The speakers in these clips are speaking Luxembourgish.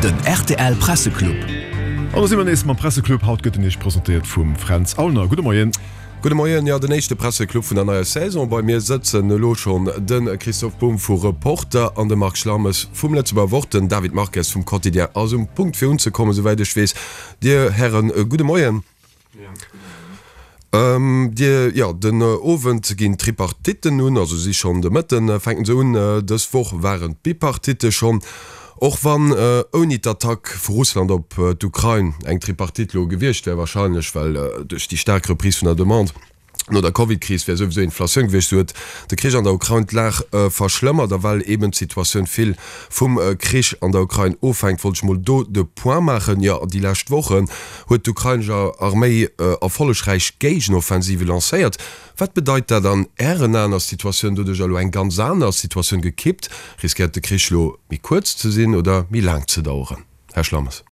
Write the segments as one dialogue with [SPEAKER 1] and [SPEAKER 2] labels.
[SPEAKER 1] Den rtl Presseclub.
[SPEAKER 2] An do si mer nees mam Presseclub. Haut gëtt en Iech presentéiert vum Fränz Aulner. Gudde Moien.
[SPEAKER 3] Gudde Moien. Jo, den éischte Presseclub vun der neier Saison. Bei mir sëtzen elo schonn de Christoph Bumb vu Reporter an de Marc Schlammes vum Lëtzebuerger Wort. Den David Marques vum Quotidien ass um Punkt fir unzekommen, souwäit ech weess. Dir Hären, gudde Moien. Dir, jo, den Owend ginn d'Tripartitten un, also si schonn de Mëtten fänken se un. Dës Woch waren d'Bipartitte schonn. Och wann ouni d'Attack vu Russland op d'Ukrain eng Tripartite lo gewiescht wär, wahrscheinlech, well duerch déi staark Reprise vun der Demande, No der Covid-Kris wär souwisou Inflatioun gewiescht, sou huet de Krich an der Ukrain d'Lag verschlëmmert. A well eben d'Situatioun vill vum Krich an der Ukrain ofhänkt, wollt ech mol do de Point maachen. Jo, déi lescht Wochen huet d'ukrainesch Arméi erfollegräich Géigenoffensive lancéiert. Wat bedeit dat an Ären Aen? Ass d'Situatioun doduerch elo eng ganz aner? Ass d'Situatioun gekippt? Riskéiert de Krich elo méi kuerz ze sinn oder méi laang ze daueren? Här Schlammes.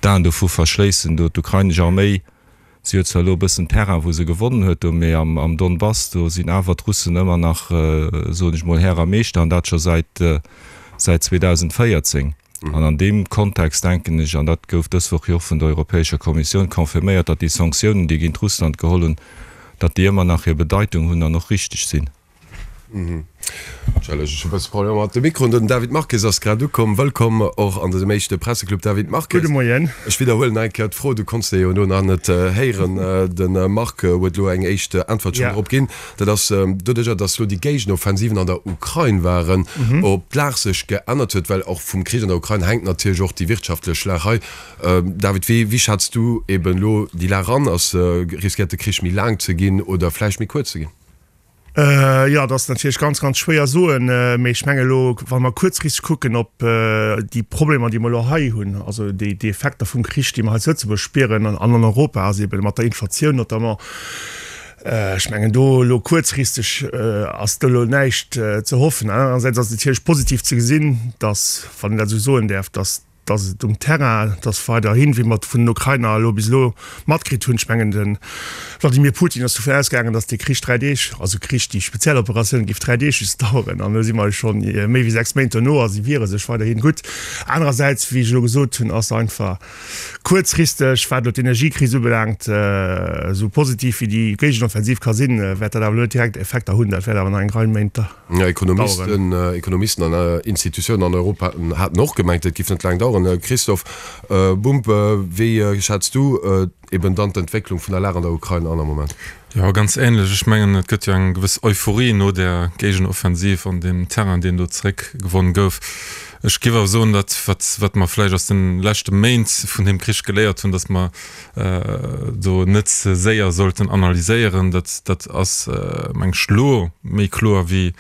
[SPEAKER 4] D'Aen dovu verschléissen, do d'ukrainesch Arméi, si huet zwar elo e bëssen Terrain wou se gewonnen huet do, mee am Donbass do sinn awer d'Russen ëmmer nach, soen ech mol, Här a Meeschter, an dat scho säit säit 2014. An an deem Kontext denken ech, an dat gouf dës Woch jo och vun der Europäescher Kommissioun confirméiert, datt déi Sanktiounen, déi géint Russland geholl hunn, datt déi ëmmer nach hir Bedeitung hunn an och richteg sinn.
[SPEAKER 3] Entschëllegt, ech hu bësse Problemer mat de Mikroen. Den David Marques ass grad ukomm. Wëllkomm och an dësem éischte Presseclub, David Marques.
[SPEAKER 5] Gudde Moien.
[SPEAKER 3] Ech widderhuelen nach eng Kéier d'Fro, du konns se jo elo nach net héieren. De Marc huet elo eng éischt Äntwert schonn drop ginn. Dat ass doduercher, datt elo déi Géigenoffensiven an der Ukrain waren, ob d'Lag sech geännert huet, well och vum Krich an der Ukrain hänkt natierlech och déi wirtschaftlech Lag hei. David, wéi schätz du eben elo déi Lag an? Ass, riskéiert de Krich méi laang ze ginn oder vläicht méi kuerz ze ginn?
[SPEAKER 5] Jo, dat ass natierlech ganz, ganz schwéier soen. Mee ech menge elo, wa mer kuerzfristeg kucken op déi Problemer, déi mer elo hei hunn, also déi Effekter vum Krich, déi mer hei zu Lëtzebuerg spieren an an Europa, ass eeben mat der Inflatioun notamment, ech mengen do elo kuerzfristeg ass do elo näischt ze hoffen. Anerersäits ass et natierlech positiv ze gesinn, datt, wann een dat esou soen däerf, datt dass et um Terrain, dass weiderhin, wéi mer et vun den Ukrainer elo bis elo matkritt hunn, ech mengen de Wladimir Putin ass dovun ausgaangen, dass dee Krich 3 Deeg, also Krich, déi speziell Operatioun géif 3 Deeg just daueren, an elo si mer scho méi wéi 6 Méint dono a si wiere sech weiderhin gutt. Anerersäits, wéi ech elo gesot hunn, ass einfach kuerzfristeg, wat elo d'Energiekris ubelaangt, esou positiv wéi déi Géigenoffensiv ka sinn, wäert dat awer elo net direkt Effekter hunn. Dat wäert awer nach eng Rei Méint
[SPEAKER 3] Ekonomisten, Ekonomisten an Institutiounen an Europa haten och gemengt, et giff net laang daueren. Christophe Bumb, wéi schätz du eben dann d'Entwécklung vun der Lag an der Ukrain an am Moment?
[SPEAKER 6] Jo, ganz ähnlech. Ech mengen, et gëtt jo eng gewëss Euphorie no där Géigenoffensiv an deem Terrain, deen do zeréckgewonn gouf. Ech géif awer soen, dat wat, wat mer vläicht aus de leschte Méint vun deem Krich geléiert hunn, datt mer do net ze séier sollten analyséieren. Dat, dat ass, meng ech, elo méi kloer wéi,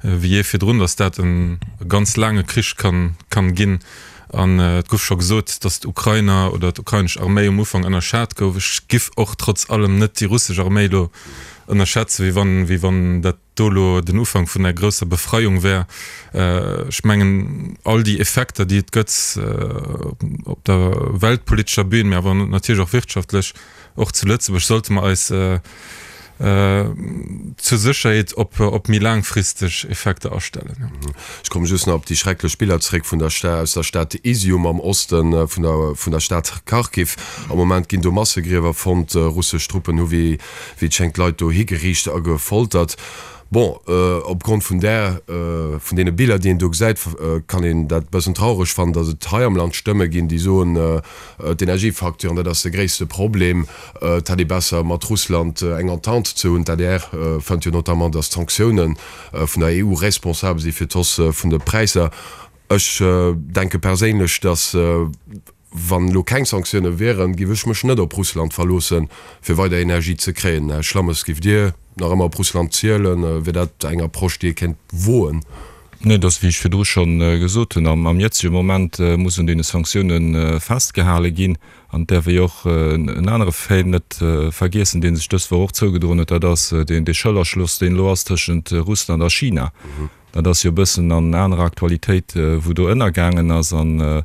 [SPEAKER 6] wéi jee virdrun, datt dat e ganz laange Krich kann, kann ginn. An et gouf scho gesot, datt d'Ukrainer oder d'ukrainesch Arméi um Ufank ënnerschat gouf. Ech giff och trotz allem net déi russesch Arméi elo ënnerschätzen, wéi wann, wéi wann dat do elo den Ufank vun der grousser Befreiung wär. Ech mengen, all déi Effekter, déi et gëtt op der weltpolitescher Bühn, mä awer natierlech och wirtschaftlech, och zu Lëtzebuerg, sollte mer eis zur Sécherheet op méi laangfristeg Effekter astellen.
[SPEAKER 3] Ech komme just nach op déi schrecklech Biller zréck vun der aus der Stad Izium am Oste vun der vun der Stad Kharkiv. Am Moment ginn do Massegriewer fonnt. Russesch Truppen hu wéi wéi et schéngt Leit do higeriicht a gefoltert. Bon, opgrond vun där, vun deene Biller, déi een do gesäit, kann een dat e bëssen traureg fannen, datt et hei am Land Stëmme ginn, déi soen, d'Energiefacturen, dat ass de gréisste Problem, et hätt ee besser mat Russland eng Entente ze hunn. D'ADR fënnt jo notamment, datt d'Sanktioune vun der EU responsabel si fir d'Hausse vun de Präisser. Ech denke perséinlech, datt Wann elo keng Sanktioune wieren, giff ech mech net op Russland verloossen, fir weider Energie ze kréien. Här Schlammes, giff Dir nach ëmmer op Russland zielen? Wier dat eng Approche, déi ee kéint woen?
[SPEAKER 4] Nee, et ass, wéi ech virdru scho gesot hunn, am jëtzege Moment muss un deene Sanktioune festgehale ginn. An et däerf ee jo och en anere Fait net vergiessen, dee sech dës Woch och zougedroen huet, dat ass dee Schëllerschloss, deen elo ass tëschent Russland a China. Dat ass jo e bëssen an anerer Aktualitéit, wou do ënnergaangen ass. An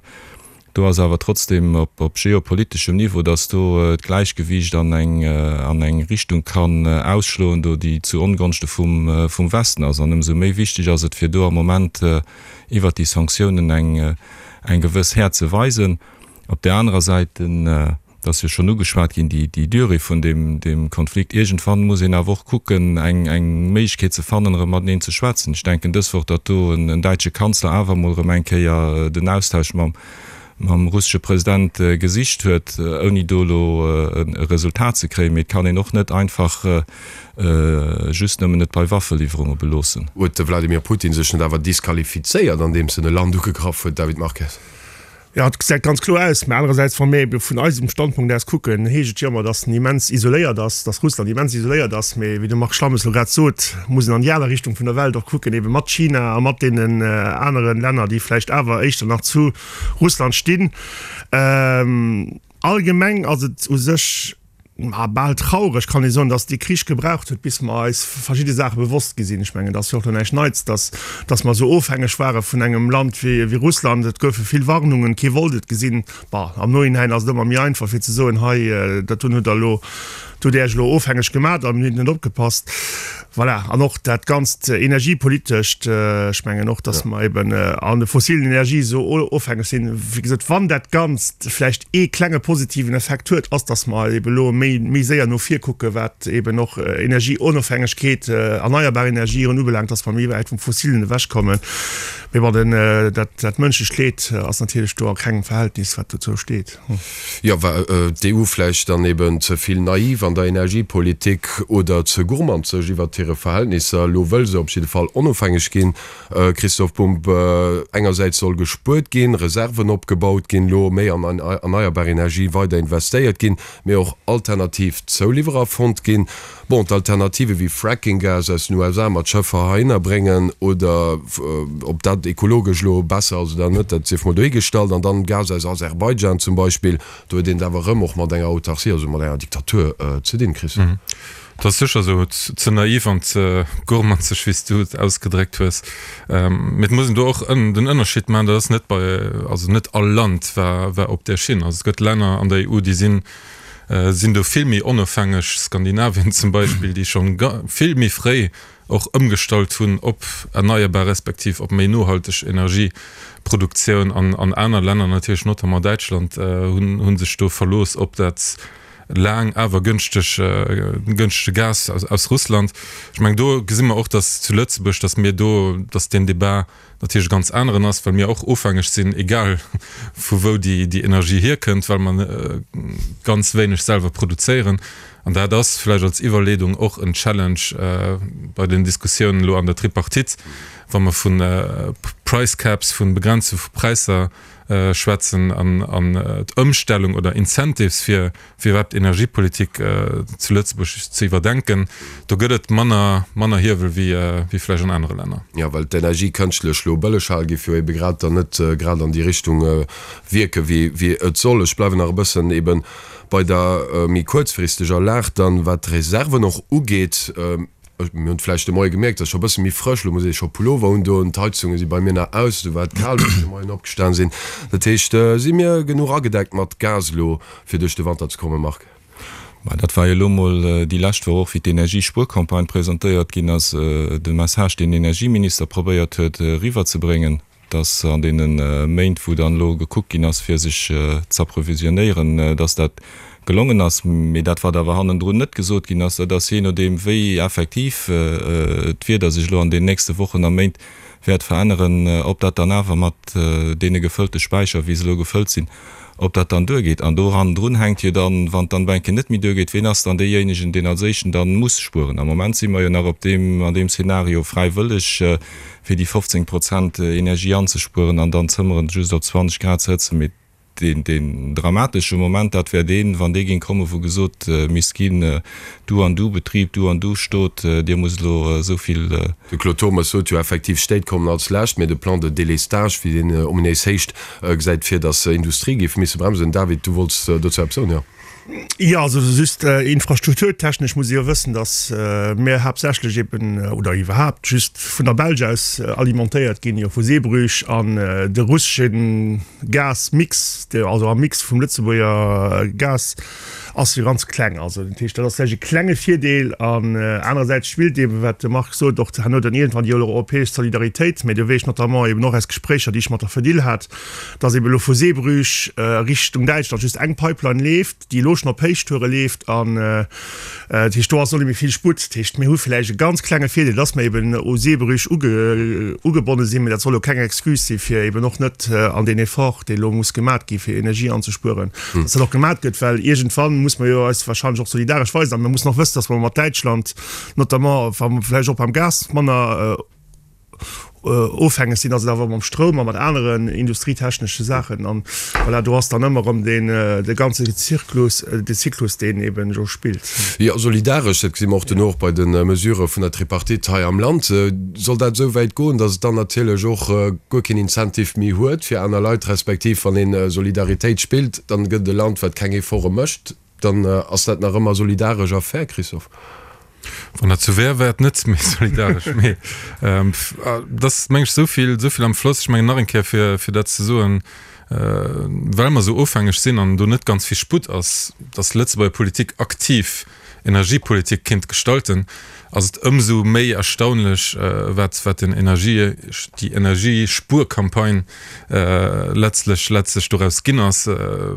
[SPEAKER 4] Do ass awer trotzdem op geopoliteschem Niveau, datt do d'Gläichgewiicht an eng an eng Richtung kann ausschloen do, déi zu Ongonschte vum vum Westen ass. An ëmsou méi wichteg ass et, fir do am Moment iwwert déi Sanktiounen eng eng gewëss Häert ze weisen. Op där anerer Säit, den Et ass jo schonn ugeschwat ginn, déi, déi Durée vun deem, deem Konflikt. Iergendwann muss een awer och kucken, eng, eng Méiglechkeet ze fannen, erëm mateneen ze schwätzen. Ech denken dës Woch, datt do en, en däitsche Kanzler awer emol erëm eng Kéier den Austausch mam, mam russesche President gesicht huet, ouni do elo e Resultat ze kréien. Mee et kann een och net einfach just nëmmen et bei Waffeliwwerunge beloossen.
[SPEAKER 3] Huet de Wladimir Putin sech net awer disqualifizéiert, andeems en e Land ugegraff huet, David Marques?
[SPEAKER 5] Jo, et gesäit ganz kloer aus. Mä anerersäits, wa mir ebe vun eisem Standpunkt aus kucken, heescht et jo ëmmer, datt en immens isoléiert ass, datt Russland immens isoléiert ass. Mee wéi de Marc Schlammes elo grad sot, muss een an déi aner Richtung vun der Welt och kucken, ebe mat China a mat deenen anere Länner, déi vläicht awer éischter nach zu Russland stinn. Allgemeng ass et u sech ma bal traureg kann ee soen, dass dee Krich gebraucht huet, bis mer eis verschidde Saache bewosst gi sinn. Ech mengen, et ass jo och elo näischt Neits, dass, dass mer esou ofhängeg ware vun engem Land wéi, wéi Russland. Et goufe vill Warnungen, kee wollt et gesinn. Bon, am Nohinäin ass et ëmmer méi einfach fir ze soen, hei, dat hunn hutt Der elo, do hutt Der Iech elo ofhängeg gemat an hutt net opgepasst. Voilà, an och dat Ganzt energiepolitescht, ech mengen och, dass mer eben an de fossilen Energie esou ofhängeg sinn. Wéi gesot, wann dat Ganzt vläicht ee klenge positiven Effekt huet, ass, dass mer eben elo méi, méi séier no vir kucken, wat eben och Energieonofhängegkeet, erneierbar Energien ubelaangt, dass mer méi wäit vum Fossilen ewechkommen. Mee bon, den, dat, dat mënschlecht Leed ass natierlech do a kengem Verhältnis, wat dozou steet.
[SPEAKER 3] Jo, war d'EU vläicht dann eben ze vill naiv an der Energiepolitik oder ze gourmandzeg iwwert hire Verhältnisser? Elo wëll se op jidde Fall onofhängeg ginn. Christoph Bumb, Engersäits soll gespuert ginn, Reserven opgebaut ginn, elo méi an erneierbar Energie weider investéiert ginn, mee och alternativ Zouliwwerer fonnt ginn. Bon, d'Alternative wéi Fracking-Gas aus den USA mat Schëffer heihinner bréngen oder ob dat ekologesch elo besser ass oder net, dat sief mol dohigestallt. An dann Gas aus Aserbaidschan zum Beispill, do huet een et awer erëm och mat enger Autarcie, also mat enger Diktatur ze dinn, Christophe.
[SPEAKER 6] Dat ass sécher esou. Ze naiv an ze gourmanzeg, wéi s du et ausgedréckt hues. Mee et muss een do och den Ënnerscheed maachen, dat ass net bei, also net all Land war war op där Schinn. Also et gëtt Länner an der EU, déi sinn sinn do vill méi onofhängeg, Skandinavien zum Beispill, déi schonn vill méi fréi och ëmgestallt hunn op erneierbar respektiv op méi nohalteg Energieproduktioun. An an aner Länner, natierlech notamment Däitschland, hunn hu sech do verlooss op dat laang awer gënschteg gënschtege Gas aus aus Russland. Ech mengen do gesi mer och, datt zu Lëtzebuerg, datt mir do, datt deen Debat natierlech e ganz aneren ass, well mir och ofhängeg sinn, egal vu wou déi déi Energie hierkënnt, well mer ganz wéineg selwer produzéieren. An dat ass vläicht als Iwwerleedung och en Challenge bei den Diskussiounen elo an der Tripartite, wa mer vu Price Caps, vu Begrenze vu Präisser schwätzen an an d'Ëmstellung oder Incentives fir fir iwwerhaapt d'Energiepolitik zu Lëtzebuerg ze iwwerdenken. Do gëtt et manner manner Hiewel wéi wéi vläicht an anere Länner.
[SPEAKER 3] Jo, well d'Energie kënschtlech elo bëlleg hale géif jo ebe grad dann net grad an déi Richtung wierke wéi wéi et soll. Ech bleiwen nach e bëssen ebe bei der méi kuerzfristeger Lag dann, wat d'Reserven och ugeet. Mir hunn et vläicht de Moie gemierkt, et ass scho e bësse méi frësch, elo muss ee scho Pullover undoen, d'Heizunge si bei mir nach aus, esou war et kal, wéi ech de Moien opgestan sinn. Dat heescht, si mir genuch agedeckt mat Gas elo, fir duerch de Wanter ze kommen, Marc?
[SPEAKER 4] Mä dat war jo elo mol déi lescht Woch och, wéi d'Energiespuercampagne presentéiert ginn ass, de Message, deen den Energieminister probéiert huet eriwwerzebréngen. dass an deene Méint, wou dann elo gekuckt ginn ass, fir sech z'approvisionnéieren, dass dat gelongen ass. Mee dat, wat awer hannendrun net gesot ginn ass, dat ass, jee nodeem wéi effektiv d'Wieder sech elo an den nächste Wochen a Méint wäert veränneren, ob dat dann awer mat deene gefëllte Späicher, wéi se elo gefëllt sinn, ob dat dann duergeet. An do hannendrun hänkt jo dann, wann et dann ebe eng Kéier net méi duergeet, ween ass dann deejéinegen, deen als éischten dann muss spueren. Am Moment si mer jo nach op deem, an deem Szenario fräiwëlleg, fir déi 15 Prozent Energie anzespueren an dann d'Zëmmeren just op 20 Grad ze hëtzen. Mee. deen, deen dramatesche Moment, dat wär deen, wann dee géing kommen, wou gesot misst ginn, Du an du Betrib, du an du Stot, dir musst elo esou vill.
[SPEAKER 3] De Claude Turmes sot jo effektiv, Stéit kommen als lescht, mee de Plan de délestage, wéi deen ominéis héicht, gesäit vir, datt Industrie géif misse bremsen. David, du wollts dozou eppes soen, jo?
[SPEAKER 5] Jo, also just infrastrukturtechnesch muss ee jo wëssen, datt mir haaptsächlech eben, oder iwwerhaapt just vun der Belsch aus alimentéiert ginn, jo vu Zeebrugge an de russesche Gasmix, also am Mix vum Lëtzebuerger Gas ass jo ganz kleng. Also dat heescht, dat ass vläicht e klenge Virdeel. An anerersäits spillt eeben, wat de Marc sot, och herno dann iergendwann déi europäesch Solidaritéit. Mä do weess ech notamment eeben och aus Gespréicher, déi ech mat der Fedil hat, dass eeben elo vu Zeebrugge Richtung Däitschland just eng Pipeline leeft, déi elo schonn op Héichtoure leeft. An dat heescht, do ass och net méi vill Sputt. Dat heescht, mir hu vläicht e ganz klenge Virdeel, dass mer eeben u Zeebrugge ugebonne sinn. Mä dat soll elo keng Excuse si fir eeben och net an deen Effort, dee elo muss gemat gi fir Energie anzespueren, dass dat och gemat gëtt, well iergendwann muss mer jo eis wahrscheinlech och solidaresch weisen. A mir mussen och wëssen, dass mer mat Däitschland notamment, wa mer vläicht och beim Gas manner ofhängeg sinn, ass et awer mam Stroum a mat aneren industrietechnesche Saachen. An voilà, do ass dann ëmmer erëm deen, de ganze Zirklus, de Zyklus, deen eben do spillt.
[SPEAKER 3] Jo, solidaresch, dat gesi mer och duerno och bei de Mesurë vun der Tripartite hei am Land. Soll dat esou wäit goen, datt et dann natierlech och guer keen Incentive méi huet fir aner Leit, respektiv wann ee Solidaritéit spillt, dann gëtt et e Land, wat keng Efforte mécht, dann ass dat nach ëmmer solidaresch a fair, Christophe?
[SPEAKER 6] Wann dat sou wär, wär et net méi solidaresch. Mee et ass, meng ech, esou vill, esou vill am Floss. Ech mengen nach eng Kéier, fir, fir dat ze soen, well mer esou ofhängeg sinn an do net ganz vill Sputt ass, datt Lëtzebuerger Politik aktiv Energiepolitik kéint gestalten, ass et ëmsou méi erstaunlech, wat, wat den Energie, déi Energiespuercampagne letztlech, letztlech doraus ginn ass,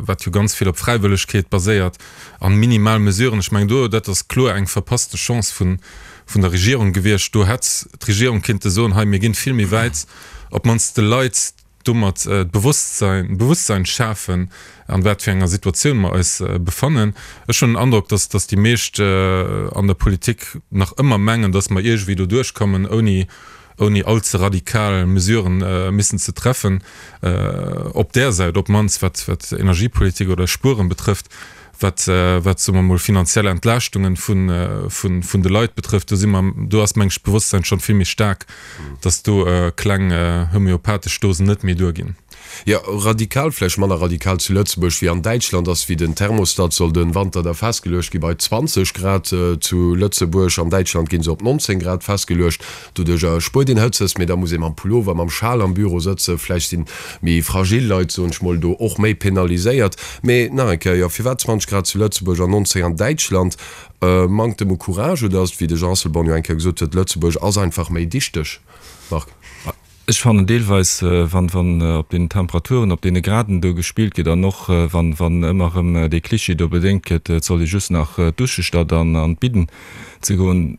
[SPEAKER 6] wat jo ganz vill op Fräiwëllegkeet baséiert an minimal Mesuren. Ech mengen do, dat ass kloer eng verpasste Chance vun, vun der Regierung gewiescht. Do hätt d'Regierung kinnte soen, hei mir ginn vill méi wäit, op d'mannst de Leit domat d'Bewusstsein, Bewusstsein schafen, an wat fir enger Situatioun mer eis befannen. Ech hunn den Androck, dass, dass déi meescht an der Politik nach ëmmer mengen, dass mer iergendwéi do duerchkommen, ouni, ouni allze radikal Mesuren missen ze treffen, op där Säit op d'mannst, wat, wat Energiepolitik oder Spueren betrëfft. Wat, wat, soe mer emol, finanziell Entlaaschtungen vun, vun, vun de Leit betrëfft, do si mer, do ass, meng ech, d'Bewosstsein schonn vill méi staark, dass do kleng homöopathesch Dosen net méi duerginn.
[SPEAKER 3] Jo, radikal, vläicht manner radikal zu Lëtzebuerg wéi an Däitschland, ass wéi den Thermostat soll den Wanter da festgeluecht gi bei 20 Grad zu Lëtzebuerg. An Däitschland ginn se op 19 Grad festgeluecht. Doduercher spuert een Hëtzes, mee da muss ee mam Pullover, mam Schal am Büro sëtzen. Vläicht sinn méi fragil Leit, soen ech mol, do och méi penaliséiert. Mee nach eng Kéier, jo, firwat 20 Grad zu Lëtzebuerg an 19 an Däitschland? Mankt em u Courage oder ass et, wéi de Jean Asselborn jo eng Kéier gesot huet, Lëtzebuerg ass einfach méi dichteg? Marc.
[SPEAKER 4] Ech fannen deelweis, wann, wann op deenen Temperaturen, op deene Graden do gespillt gëtt an och wann, wann ëmmer erëm dee Cliché do bedéngt gëtt, et soll ee just nach dusche statt an an d'Bidden ze goen,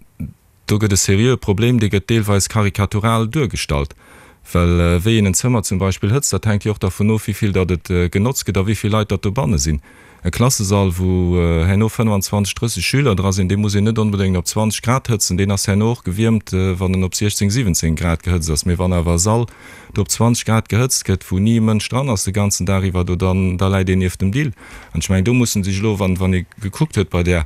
[SPEAKER 4] do gëtt e seriöe Problem, dee gëtt deelweis karikatural duergestallt. Well wéi een en Zëmmer zum Beispill hëtzt, dat hänkt jo och dervun of, wéi vill datt et genotzt gëtt a wéi vill Leit datt dobanne sinn. E Klassesall, wou herno 25, 30 Schüler dra sinn, dee muss een net onbedéngt op 20 Grad hëtzen, deen ass herno och gewiermt, wann en op 16, 17 Grad gehëtzt ass. Mee wann awer e Sall do op 20 Grad gehëtzt gëtt, wou ni e Mënsch dran ass de ganzen Dag iwwer, do dann, da läit een nieft dem Dill. An ech mengen, do mussen sech elo, wann, wann ee gekuckt huet bei där,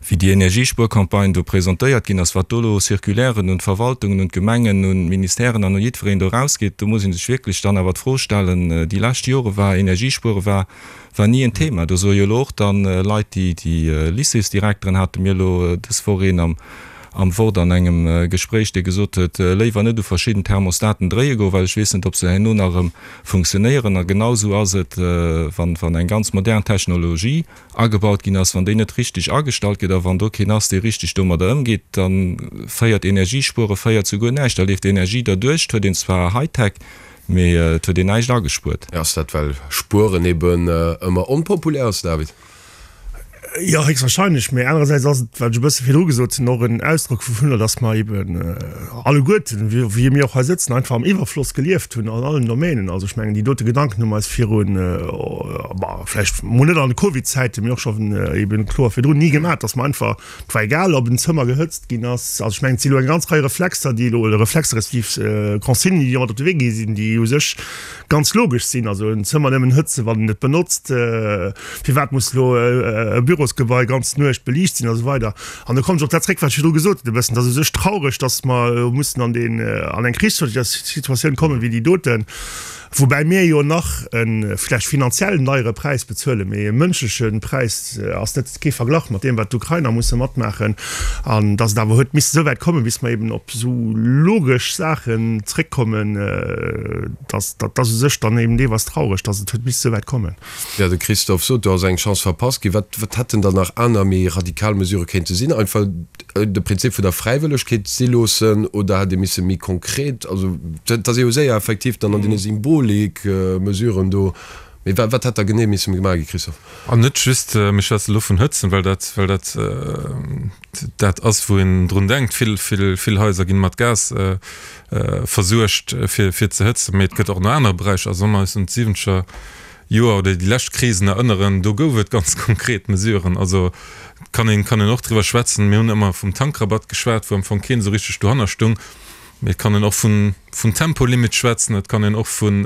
[SPEAKER 4] wéi déi Energiespuercampagne do presentéiert ginn ass, wat do elo Circulairen un d'Verwaltungen, un d'Gemengen, un d'Ministèren an u jiddwereen do erausgeet, do muss ee sech wierklech dann awer d'Fro stellen, déi lescht Jore war Energiespuere war war ni en Thema. Do soe jo elo och dann Leit, déi déi Lycéesdirekteren hate mir elo dës Woch een am am Wort an engem Gespréich, dee gesot huet, léiwer net u verschidden Thermostaten dréie goen, well ech weess net, ob se herno nach erëm funktionéieren. A genau esou ass et, wann wann eng ganz modern Technologie agebaut ginn ass, wann déi net richteg agestallt gëtt a wann do keen ass, dee richteg domadder ëmgeet, da féiert Energiespuere féiert zu guer näischt. Da leeft Energie derduerch, et huet een zwar Hightech, mee et huet een näischt agespuert.
[SPEAKER 3] Ass dat well Spueren eben ëmmer onpopulär ass, David?
[SPEAKER 5] Jo, héchstwahrscheinlech. Mee anerersäits ass et, wat ech e bësse virdru gesot hunn, och en Ausdrock vuvunner, datt mer eben alleguerten, wéi mir och hei sëtzen, einfach am Iwwerfloss gelieft hunn an allen Domänen. Also ech mengen, déi dote Gedanken hu mer eis virun, bah, vläicht mol net an de Covid-Zäiten, mee och schonn eben kloer virdrun ni gemaach, datt mer einfach, et war egal, ob en Zëmmer gehëtzt ginn ass. Also ech mengen, et si elo eng ganz Rei Reflexer, déi elo, oder Reflexer respektiv Consignen, déi mat op de Wee gi sinn, déi u sech ganz logesch sinn. Also en Zëmmer nëmmen hëtzen, wann een et benotzt. Firwat muss elo e Bürosgebai ganz Nuecht beliicht sinn a sou weider. An do kommen ech op dat zréck, wat ech virdru gesot hunn e bëssen, Et ass u sech traureg, datt mer elo mussen an deen, an eng Krichssituatioun kommen wéi déi doten, woubäi mir jo nach e vläicht finanziell deiere Präis bezuelen, mee e mënschleche Präis ass net, kee Verglach mat deem, wat d'Ukrainer musse matmaachen. An datt et awer huet misse esou wäit kommen, bis mer eben op esou logesch Saachen zréckkommen, dat, dat ass u sech dann eben deelweis traureg, datt et huet misse esou wäit kommen.
[SPEAKER 3] Jo, de Christophe sot, do ass eng Chance verpasst ginn. Wat, wat hätten dann nach aner méi radikal Mesurë kéinte sinn? Einfach de Prinzip vun der Fräiwëllegkeet si loossen oder hätt ee misse méi konkret, also dat ass ee jo séier effektiv dann an deene Symbolik-Mesuren do. Mee wat, wat hätt da genee misse gemaach gi, Christophe?
[SPEAKER 6] An net just, mir schwätze elo vun Hëtzen, well dat, well dat dat ass, wou een drun denkt. Vill, vill, vill Haiser ginn mat Gas versuergt, fir, fir ze hëtzen. Mee et gëtt och nach aner Beräicher. Also wa mer eis un d'siwwenzeger Joer oder déi lescht Krisen erënneren, do gouf et ganz konkret Mesuren. Also kann een, kann een och driwwer schwätzen. Mir hunn ëmmer vum Tankrabatt geschwat, wou am Fong keen esou richteg dohanner stung. Mee et kann een och vun, vun Tempolimit schwätzen, et kann een och vun,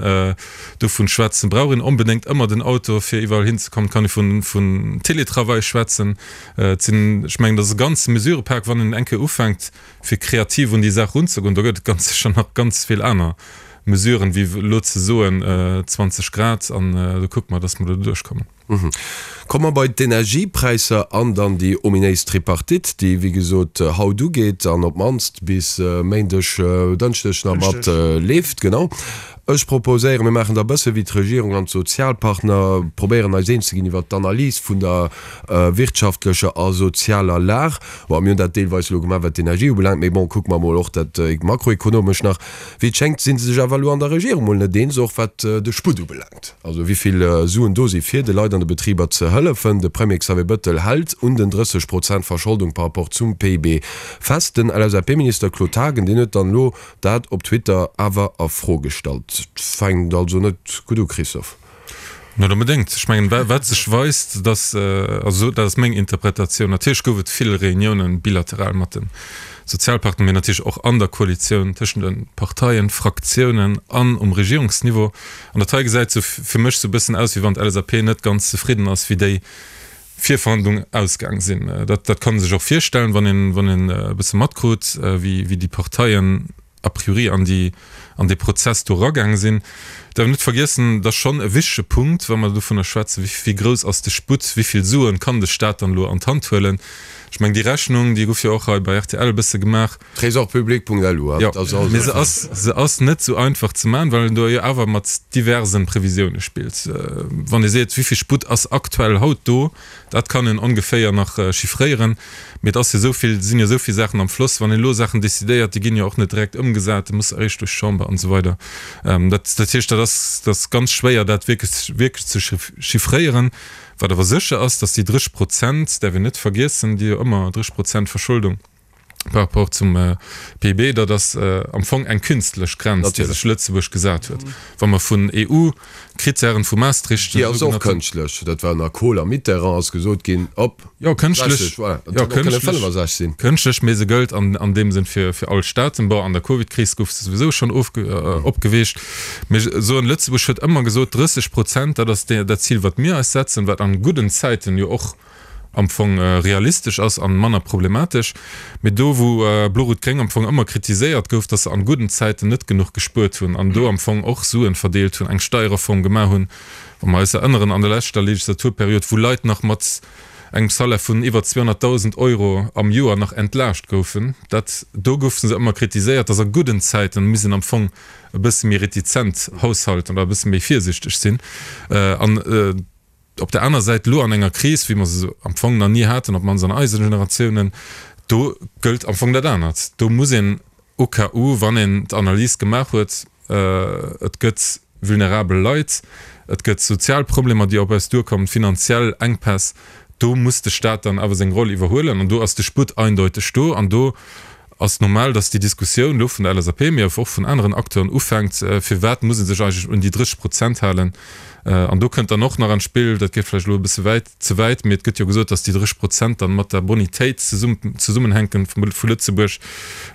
[SPEAKER 6] dovun schwätzen, brauch een onbedéngt ëmmer den Auto, fir iwwerall hinzekommen. Et kann ee vun, vun Télétravail schwätzen. Et sinn, ech mengen, dat ass e ganze Mesurepak, wann een eng Kéier ufänkt, fir kreativ un déi Saach erunzegoen, do gëtt et ganz sécher nach ganz vill aner Mesuren, wéi elo ze soen 20 Grad an do kucke mer, dass mer do duerchkommen.
[SPEAKER 3] Komme mer bei d'Energiepräisser an dann déi ominéis Tripartite, déi wéi gesot haut ugeet an op d'mannst bis Méindeg, Dënschdeg nach mat leeft. Genau. Ech proposéieren, mir maachen da e bësse wéi d'Regierung an d'Sozialpartner, probéieren eis eens ze ginn iwwert d'Analys vun der wirtschaftlecher a sozialer Lag. Bon, mir hunn dat deelweis elo gemaach, wat d'Energie ubelaangt, mee bon, kucke mer emol och dat makroekonomesch nach. Wéi et schéngt, si se sech awer elo an der Regierung mol net eens, och wat de Sputt ubelaangt, also wéi vill Suen do si fir de Leit an de Betriber ze hëllefen. De Premier Xavier Bëttel hält un den 30 Prozent Verscholdung par rapport zum PIB fest. Den LSAP-Minister Claude Haagen, deen huet dann elo dat op Twitter awer a Fro gestallt. Fänkt also net gutt u, Christophe.
[SPEAKER 6] Net onbedéngt. Ech mengen, wat sech weist, dass, also dat ass meng Interpretatioun, natierlech gouf et vill Reuniounen bilateral mat de Sozialpartner, mee natierlech och an der Koalitioun tëschent de Parteien, Fraktiounen an um Regierungsniveau. An dat hei gesäit sou fir mech sou e bëssen aus, wéi wann d'LSAP net ganz zefridden ass, wéi déi Virverhandlungen ausgaang sinn. Dat, dat kann ee sech och virstellen, wann een, wann een e bësse matkrut, wéi, wéi déi Parteien a priori an déi, an dee Prozess do eragaang sinn. Däerf net vergiessen, et ass schonn e wichtege Punkt, wa mer dovunner schwätzen, wéi, wéi grouss ass de Sputt, wéi vill Suen kann de Stat dann elo an d'Hand huelen. Ech mengen, déi Rechnung, déi gouf jo och hei bei rtl e bësse gemaach.
[SPEAKER 3] Trésorpublic.lu,
[SPEAKER 6] Jo, mee se ass, se ass net esou einfach ze maachen, well een do jo awer mat diverse Previsioune spillt. Wann ee seet, wéi vill Sputt ass aktuell haut do, Dat kann een ongeféier nach chiffréieren, mee et ass jo esou vill, sinn jo esou vill Saachen am Floss. Wann een elo Saachen decidéiert, déi ginn jo och net direkt ëmgesat, déi musse eréischt duerch d'Chamber an esou weider. Dat dat heescht, dat ass dat ass ganz schwéier, dat wierklech wierklech ze chiffréieren. Wat awer sécher ass, datt déi 30 Prozent, däerf een net vergiessen, déi jo ëmmer 30 Prozent Verscholdung, par rapport zum PIB, dat ass am Fong eng künstlech Grenz, déi sech Lëtzebuerg gesat huet. Wa mer vun EU-Krittären, vu Maastricht.
[SPEAKER 3] Déi ass och kënschtlech. Dat war ënner Kohl a Mitterrand ass gesot ginn, op
[SPEAKER 6] Jo, kënschtlech, 60, voilà. Dat hätt och kënne 65 sinn. Kënschtlech, mee se gëllt an deem Sënn fir all Staaten. Bon, an der Covid-Kris gouf se souwisou schonn opgeweecht. Mee ech soen, Lëtzebuerg huet ëmmer gesot, 30 Prozent, dat ass dat Zil, wat mir eis setzen, wat an gudden Zäiten jo och am Fong realistesch ass an manner problematesch. Mee do wou Blo-Rout-Gréng am Fong ëmmer kritiséiert gouf, datt se an gudden Zäiten net genuch gespuert hunn an do am Fong och Suen verdeelt hunn, eng Steierreform gemaach hunn, wa mer eis erënneren an der leschter Legislaturperiod, wou Leit nach mat engem Salaire vun iwwer 200.000 Euro am Joer nach entlaascht goufen, dat do goufe se ëmmer kritiséiert, datt a gudden Zäiten misst een am Fong e bësse méi retizent haushalten oder e bësse méi virsichteg sinn an. Op der aner Säit, elo an enger Kris, wéi mer se am Fong nach ni haten, op d'mannst an eise Generatiounen, do gëllt am Fong dat anert. Do muss een au cas où, wann een d'Analys gemaach huet, et gëtt vulnerabel Leit, et gëtt sozial Problemer, déi op eis duerkommen, finanziell Enkpäss, Do muss de Staat dann awer seng Roll iwwerhuelen an do ass de Sputt eindeuteg do an do ass normal, dass déi Diskussioun elo vun der LSAP, mee och vun aneren Acteuren ufänkt, Firwat muss ee sech eigentlech un déi 30 Prozent halen? An do kënnt dann och nach an d'Spill, dat geet vläicht elo e bësse wäit, ze wäit, mee et gëtt jo gesot, dass déi 30 Prozent dann mat der Bonitéit zesummenhänken vu Lëtzebuerg.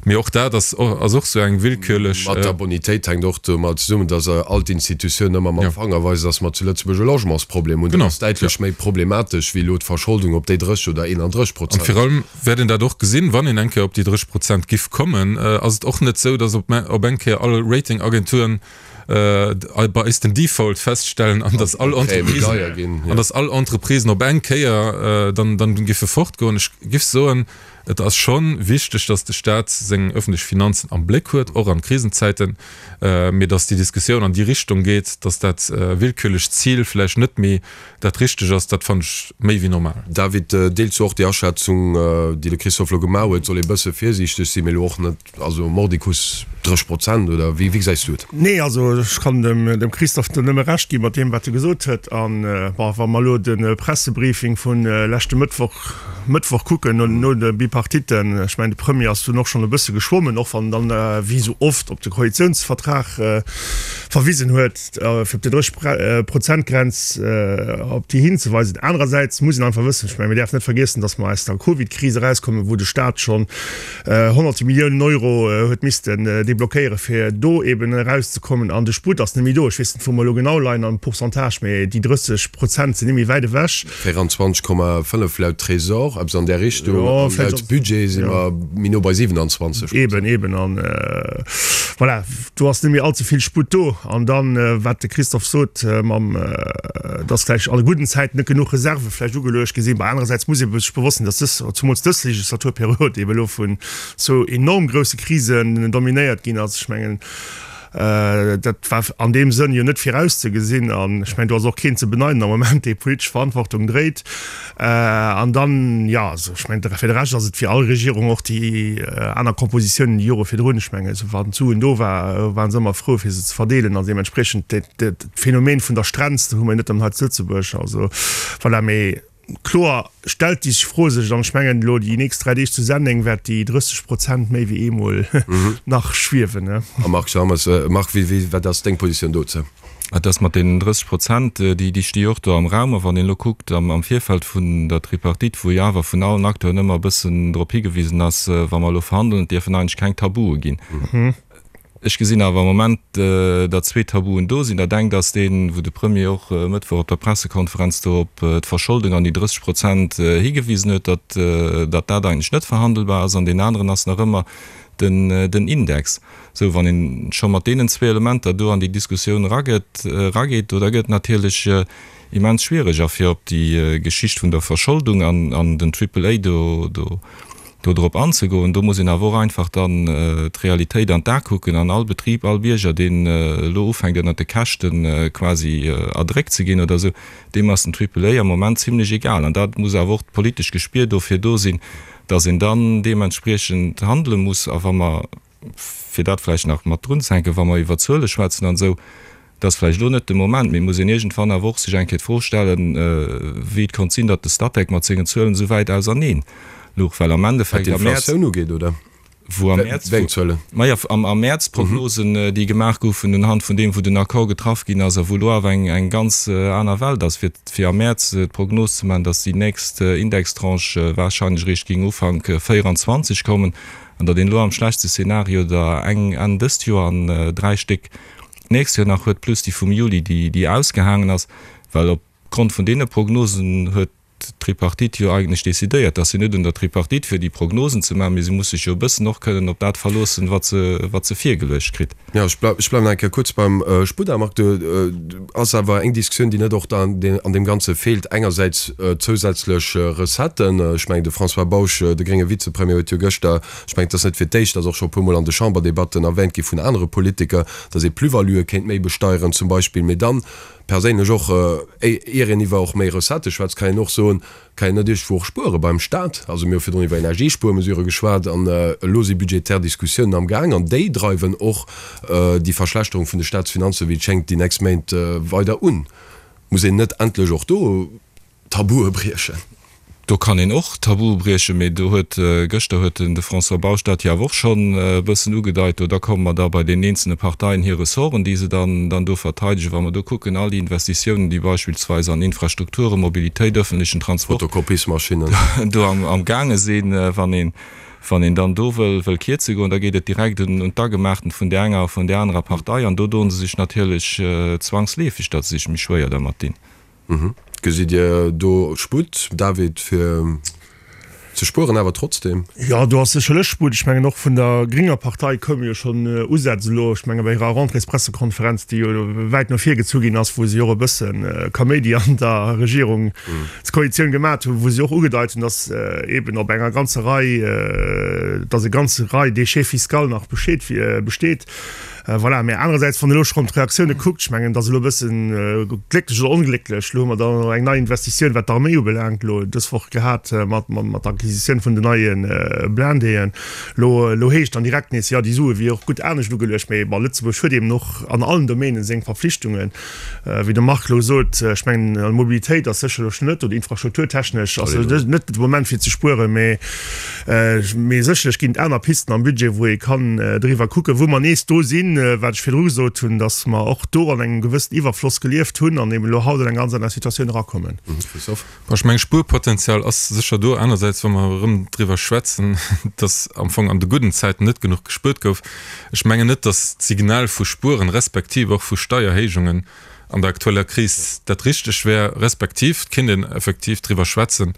[SPEAKER 6] Mee och dat ass ass och sou eng willkürlech.
[SPEAKER 3] Mat der Bonitéit hänkt och domat zesummen, dass all d'Institutiounen ëmmer mam Fanger weisen, dass mer zu Lëtzebuerg e Logementsproblem hunn. Dat ass däitlech méi problematesch wéi elo d'Verscholdung op déi 30 oder 31
[SPEAKER 6] Prozent. An virun allem wäert een dat och gesinn, wann een eng Kéier op déi 30 Prozent giff kommen, ass et och net sou, dass op op eng Kéier all Ratingagenturen bei eis den Default feststellen an dass all Entreprisen an dass all Entreprisen op eng Kéier dann dann giffe fortgoen. Ech giff soen, et ass scho wichteg, dass de Staat seng öffentlech Finanzen am Bléck huet, och an Krisenzäiten, mee dass déi Diskussioun an déi Richtung geet, dass dat willkürlecht Zil vläicht net méi dat richteg ass, dat fannen ech méi wéi normal.
[SPEAKER 3] David, deels du och déi Aschätzung, déi de Christophe elo gemaach huet? Soll ee bësse virsiichteg sinn, mee elo och net, also mordicus 30 Prozent, oder wéi gesäis du et?
[SPEAKER 5] Nee, also ech kann dem Christophe do nëmme Recht gi mat deem, wat e gesot huet. An, bon, wa mer elo de Pressebriefing vu leschte Mëttwoch, Mëttwoch kucken, no de Bipartitten, ech mengen, de Premier ass dunn och schonn e bësse geschwommen, och wann en dann, wéi esou oft, op de Koalitiounsvertrag verwisen huet, fir op déi 30 Prozent-Grenz op déi hinzeweisen. Anerersäits muss een einfach wëssen, ech mengen, mir däerfen net vergiessen, datt mer aus der Covid-Kris erauskommen, wou de Staat schonn honnerte Milliounen Euro huet missten deblockéieren, fir do eeben erauszekommen. An de Sputt ass net méi do. Ech weess net, wou mer elo genau leien am Pourcentage, mee déi 30 Prozent sinn net méi wäit ewech.
[SPEAKER 3] 24,5 laut Trésor, eppes an där Richtung. An laut Budget si mer méi no bei 27.
[SPEAKER 5] Eben, eben. An voilà, do ass net méi allze vill Sputt do. An dann, wat de Christophe sot, mam, dass vläicht an gudden Zäiten net genuch Reserve vläicht ugeluecht gi sinn. Mä anerersäits muss ee sech bewosst sinn, dass dës, zumools dës Legislaturperiod eben elo vun zwou enorm grousse Krisen dominéiert ginn ass. Ech mengen, Dat war an deem Sënn jo net virauszegesinn. An ech mengen, do ass och keen ze beneiden am Moment, dee politesch Verantwortung dréit. An dann, jo, also ech mengen, fir de Rescht ass et wéi all Regierung, och déi aner Kompositiounen déi Jore virdrun, ech mengen, esou wann d'Suen do war, ware se ëmmer frou, fir se ze verdeelen. Also deementspriechend dat Phänomen vun der Strenz, dat hu mer jo net nëmmen hei zu Lëtzebuerg. Also voilà, mee. Kloer stellt déi Fro sech, an ech mengen elo déi nächst 3 Deeg zu Senneng wäert déi 30 Prozent méi wéi eemol nach schwiewen.
[SPEAKER 3] A Marc Schammes, Marc, wéi, wéi, wat ass deng Positioun dozou?
[SPEAKER 4] Et ass mat deenen 30 Prozent, déi, déi sti jo och do am Raum. A wann een elo kuckt am, am Virfeld vun der Tripartite, wou jo awer vun allen Acteuren ëmmer e bëssen drop higewisen ass, wa mer elo verhandelen, et dierfen eigentlech keng Tabue ginn. Ech gesinn awer am Moment, datt zwee Tabuen do sinn. Dat engt ass deen, wou de Premier och e Mëttwoch op der Pressekonferenz do op d'Verscholdung an déi 30 Prozent higewisen huet, datt datt dat eigentlech net verhandelbar ass. An deen aneren ass nach ëmmer den den Index. Sou, wann ee scho mat deenen zwee Elementer do an déi Diskussioun erageet, erageet, do da gëtt et natierlech immens schwiereg. A fir op déi Geschicht vun der Verscholdung an an den Triple A do do do drop anzegoen. Do muss een awer och einfach dann d'Realitéit an d'A kucken an all Betrib, all Bierger, deen elo ufänkt ënnert de Käschte quasi erdréckt ze ginn oder esou, deem ass den Triple A am Moment zimlech egal. An dat muss awer och d'politesch Gespier dofir do sinn, datt een dann deementspriechend handele muss. A wa mer fir dat vläicht nach mat drunzehänken, wa mer iwwer Zuele schwätzen an esou, dat ass vläicht elo net de Moment, mee et muss een iergendwann awer och sech eng Kéier d'Fro stellen, wéi et konnt sinn, datt de Statec mat sengen Zuelen esou wäit auserneen louch, well am
[SPEAKER 3] Wat Endeffekt am Mäerz, d'Inflatioun ugeet, oder?
[SPEAKER 4] wou am Mäerz, Wéi eng Zuelen? Maja, am am Mäerz d'Prognosen, déi gemaach goufen unhand vun deem, wou den Accord getraff ginn ass a wou elo awer eng eng ganz aner Welt ass, fir fir am Mäerz d'Prognos ze maachen, datt déi nächst Indextranche wahrscheinlech eréischt géing Ufank 24 kommen. An datt een elo am schlechtste Szenario der eng Enn dëst Joer an 3 Stéck d'nächst Joer nach huet, plus déi vum Juli, déi ausgehaangen ass. Well op Grond vun deene Prognosen huet d'Tripartite jo eigentlech decidéiert. Et ass jo net un der Tripartite fir déi Prognosen ze maachen, mee se muss sech jo e bëssen och kënnen op dat verloossen, wat se, wat se virgeluecht kritt.
[SPEAKER 3] Jo, ech bleiwen nach eng Kéier kuerz beim Spuda. Marc, do ass awer eng Diskussioun, déi net och da an deem Ganze feelt. Engersäits zousätzlech Recetten. Ech mengen, de François Bausch, de grénge Vizepremier, huet jo gëschter, ech mengen, et ass net fir d'éischt, ass och scho e puermol an de Chamberdebatten erwähnt gi vun anere Politiker, datt ee Plus-valuë kéint méi besteieren zum Beispill. Mee dann perséinlech och, ier een iwwer och méi Recettë schwätzt, kann een och soen, Kann een net iergendwou och spuere beim Staat? Also mir hu virdrun iwwer Energiespuermesurë geschwat an elo si budgetär Diskussiounen am Gaang an déi dreiwen och déi Verschlechterung vun de Staatsfinanzen, wéi et schéngt, déi nächst Méint weider un. Muss een net endlech och do Tabue briechen?
[SPEAKER 4] Do kann een och Tabue briechen, mee do huet, gëschter huet den de François Bausch dat jo awer och schonn e bëssen ugedeit, do da komme mer da bei deenen eenzelne Parteien hir Ressorten, déi se dann dann do verteidegen. Wa mer do kucken, all déi Investitiounen, déi beispillsweis an Infrastrukturen, Mobilitéit, öffentlichen Transport
[SPEAKER 3] Fotokopiesmaschinen.
[SPEAKER 4] do am am gaange sinn, wann een wann een dann do wëll wëll kierze goen, da geet et direkt un un d'Agemachten vun där enger a vun där anerer Partei an do doen se sech natierlech zwangsleefeg, datt se sech méi schwéier dermat dinn.
[SPEAKER 3] Gesitt Dir do Sputt, David, fir ze spueren awer trotzdem?
[SPEAKER 5] Jo, do ass sécherlech Sputt. Ech mengen, och vun der grénger Partei koume jo schonn Usätz elo, ech menge bei hirer Rentréespressekonferenz, déi jo wäit no vir gezu ginn ass, wou si och e bësse Kaméidi an der Regierungskoalitioun gemat hunn, wou si och ugedeit hunn, datt eeben op enger ganzer Rei, datt e ganze Rei Déchet fiscal nach besteet. Voilà, mä anerersäits, wann een elo schonn d'Reaktioune kuckt, ech mengen, et ass elo e bëssen glécklech oder onglécklech, elo hu mer dann eng nei Investitioun, wat d'Arméi ubelaangt, elo dës Woch gehat mat mat der Acquisitioun vun den neie Blindéen. Elo elo heescht dann direkt nees, jo, déi Sue wier och gutt anescht ugeluecht. Mä bon, Lëtzebuerg huet eben och an allen Domänen seng Verpflichtungen. Wéi de Marc elo sot, ech mengen, an Mobilitéit ass sécherlech net, oder infrastrukturtechnesch ass net de Moment fir ze spueren, mä mee sécherlech ginn et aner Pisten am Budget, wou ee kann driwwer kucken, wou mer nees do sinn, wat ech virdru gesot hunn, datt mer och do an engem gewëssen Iwwerfloss gelieft hunn an eben elo haut an eng ganz aner Situatioun erakommen.
[SPEAKER 6] Christophe. Bon, ech mengen, Spuerpotenzial ass sécher do. Anersäits, wa mer erëm driwwer schwätzen, datt am Fong an de gudden Zäiten net genuch gespuert gouf, ech mengen net, datt d'Signal vu Spueren respektiv och vu Steierhéijungen an der aktueller Kris dat Richteg wär, respektiv et kéint een effektiv driwwer schwätzen,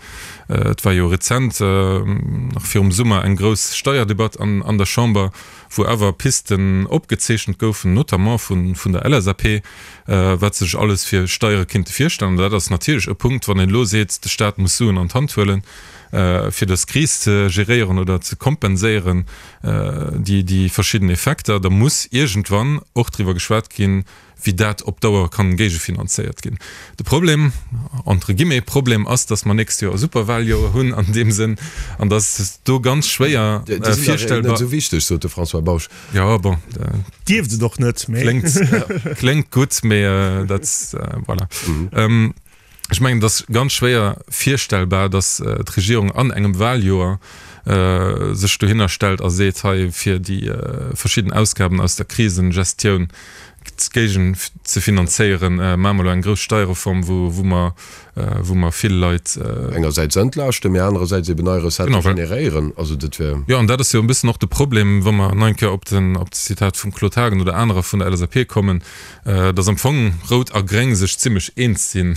[SPEAKER 6] et war jo rezent, nach virum Summer, eng grouss Steierdebatt an der Chamber, wou awer Pisten opgezeechent goufen, notamment vun der LSAP, wat se sech alles fir Steiere kinnte virstellen. An dat ass natierlech e Punkt, wann een elo seet, de Staat muss Suen an d'Hand huelen, fir dës Kris ze geréieren oder ze kompenséieren, déi verschidden Effekter, da muss iergendwann och driwwer geschwat ginn, wéi dat op Dauer kann géigefinanzéiert ginn. De Problem, entre guillemets Problem, ass, dass mer nächst Joer e Superwahljoer hunn an deem Sënn an dass do ganz schwéier
[SPEAKER 3] virstellbar. Déi sinn dach net esou wichteg, sot de François Bausch.
[SPEAKER 6] Jo, bon.
[SPEAKER 5] Dierft et och net,
[SPEAKER 6] mee. Kléngt gutt, mee dat, voilà. Ech mengen, et ass ganz schwéier virstellbar, datt d'Regierung an engem Wahljoer sech dohinner stellt a seet, hei fir déi verschidden Ausgaben aus der Krisengestioun géigen ze finanzéieren, maache mer elo eng grouss Steierreform, wou mer, wou mer vill Leit.
[SPEAKER 3] Engersäits entlaaschten, mee anerersäits eben nei Recettë generéieren. Also dat wär.
[SPEAKER 6] Jo, an dat ass jo e bëssen och de Problem, wa mer nach eng Kéier op den, op d'Zitat vum Claude Haagen oder anerer vun der LSAP kommen, dass am Fong Rout a Gréng sech zimlech eens sinn,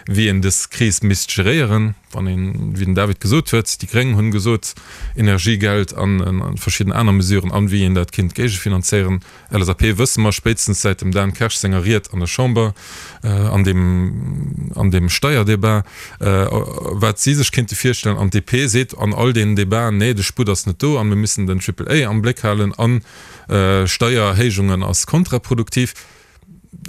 [SPEAKER 6] wéi een dës Kris misst geréieren. Wann een, wéi den David gesot huet, déi Gréng hunn gesot, Energiegeld an verschidden aner Mesuren an wéi een dat kinnt géigefinanzéieren. LSAP wësse mer spéitstens säit dem Dan Kersch senger Ried an der Chamber an deem, an deem Steierdebat, wat si sech kinnte virstellen. An d'DP seet an all deenen Debaten, nee, de Sputt ass net do an mir müssen den Triple A am Bléck halen an, Steiererhéijungen ass kontraproduktiv.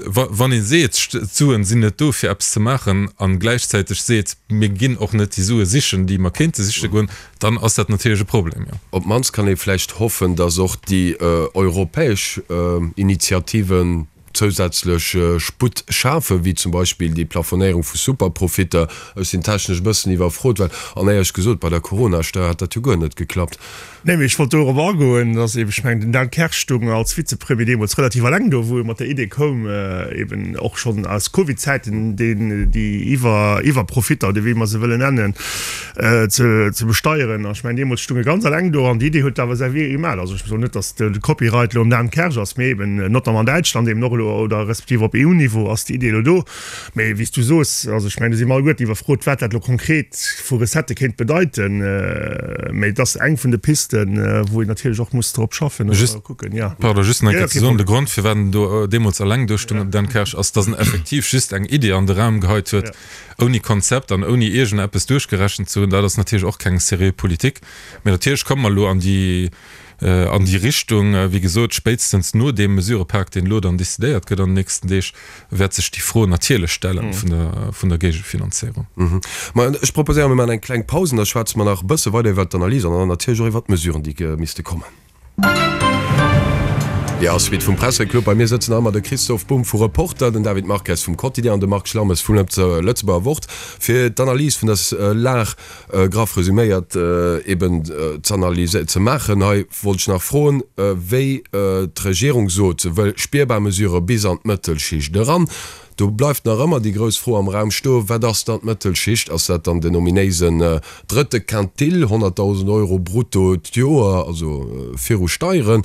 [SPEAKER 6] Wann ee seet, d'Suen sinn net do fir eppes ze maachen a gläichzäiteg seet, mir ginn och net déi Sue sichen, déi mer kéinte siche goen, dann ass dat natierlech e Problem, jo.
[SPEAKER 3] Op d'mannst kann ee vläicht hoffen, datt och déi europäesch Initiativen zousätzlech Sputt schafen, wéi zum Beispill déi Plafonéierung vu Superprofitter. Ech sinn technesch e bëssen iwwerfrot, well, an éierlech gesot, bei der Coronasteuer hat dat jo guer net geklappt.
[SPEAKER 5] Nee, mee ech wollt dorop agoen, dass eben, ech mengen, den Dan Kersch stoung als Vizepremier deemools relativ alleng do, wou e mat der Idee koum, eben och schonn aus Covid-Zäiten deen, déi Iwwer, Iwwerprofitter, oder wéi mer se wëllen nennen, ze, ze besteieren. An ech mengen, deemools stoung e ganz alleng do an déi Idee huet awer säi Wee gemaach. Also ech soen net, dass de Copyright elo um Dan Kersch ass, mee eben notamment an Däitschland eben och elo, oder respektiv op EU-Niveau ass déi Idee elo do. Mee wéi s du soos, also ech mengen, do si mer alleguerten iwwerfrot, wat dat elo konkret vu Recettë kéint bedeiten. Mee et ass eng vun de Pisten, wou een natierlech och muss drop schaffen
[SPEAKER 6] oder kucken, jo. Pardon, just nach eng Kéier ze soen, de Grond, firwat en do deemools eleng do stoung, Dan Kersch, ass, datt en effektiv just eng Iddi an de Raum geheit huet, ouni Konzept an ouni iergendeppes duerchgerechent ze hunn. Dat ass natierlech och keng seriö Politik. Mee natierlech komme mer elo an déi an déi Richtung. Wéi gesot, spéitstens no deem Mesurepak, deen elo dann decidéiert gëtt an den nächsten Deeg, wäert sech déi Fro natierlech stellen vun der Géigefinanzéierung.
[SPEAKER 3] Ma ech proposéieren, mir maachen eng kleng Paus an da schwätze mer nach e bësse weider iwwert d'Analys an dann natierlech och iwwert d'Mesuren, déi misste kommen. Jo, Suite vum Presseclub. Bei mir sëtzen nach ëmmer de Christoph Bumb vu Reporter, den David Marques vum Quotidien an de Marc Schlammes vum Lëtzebuerger Wort fir d'Analys vun der Lag, graff resüméiert, eben z'analyséieren, ze maachen. Hei wollt ech nach froen, wéi d'Regierung sot, se wëll spierbar Mesurë bis an d'Mëttelschicht eran. Do bleift nach ëmmer déi grouss Fro am Raum stoen, Wat ass dann d'Mëttelschicht? Ass dat dann den ominéisen drëtte Quintil, 100.000 Euro brutto d'Joer, also viru Steieren,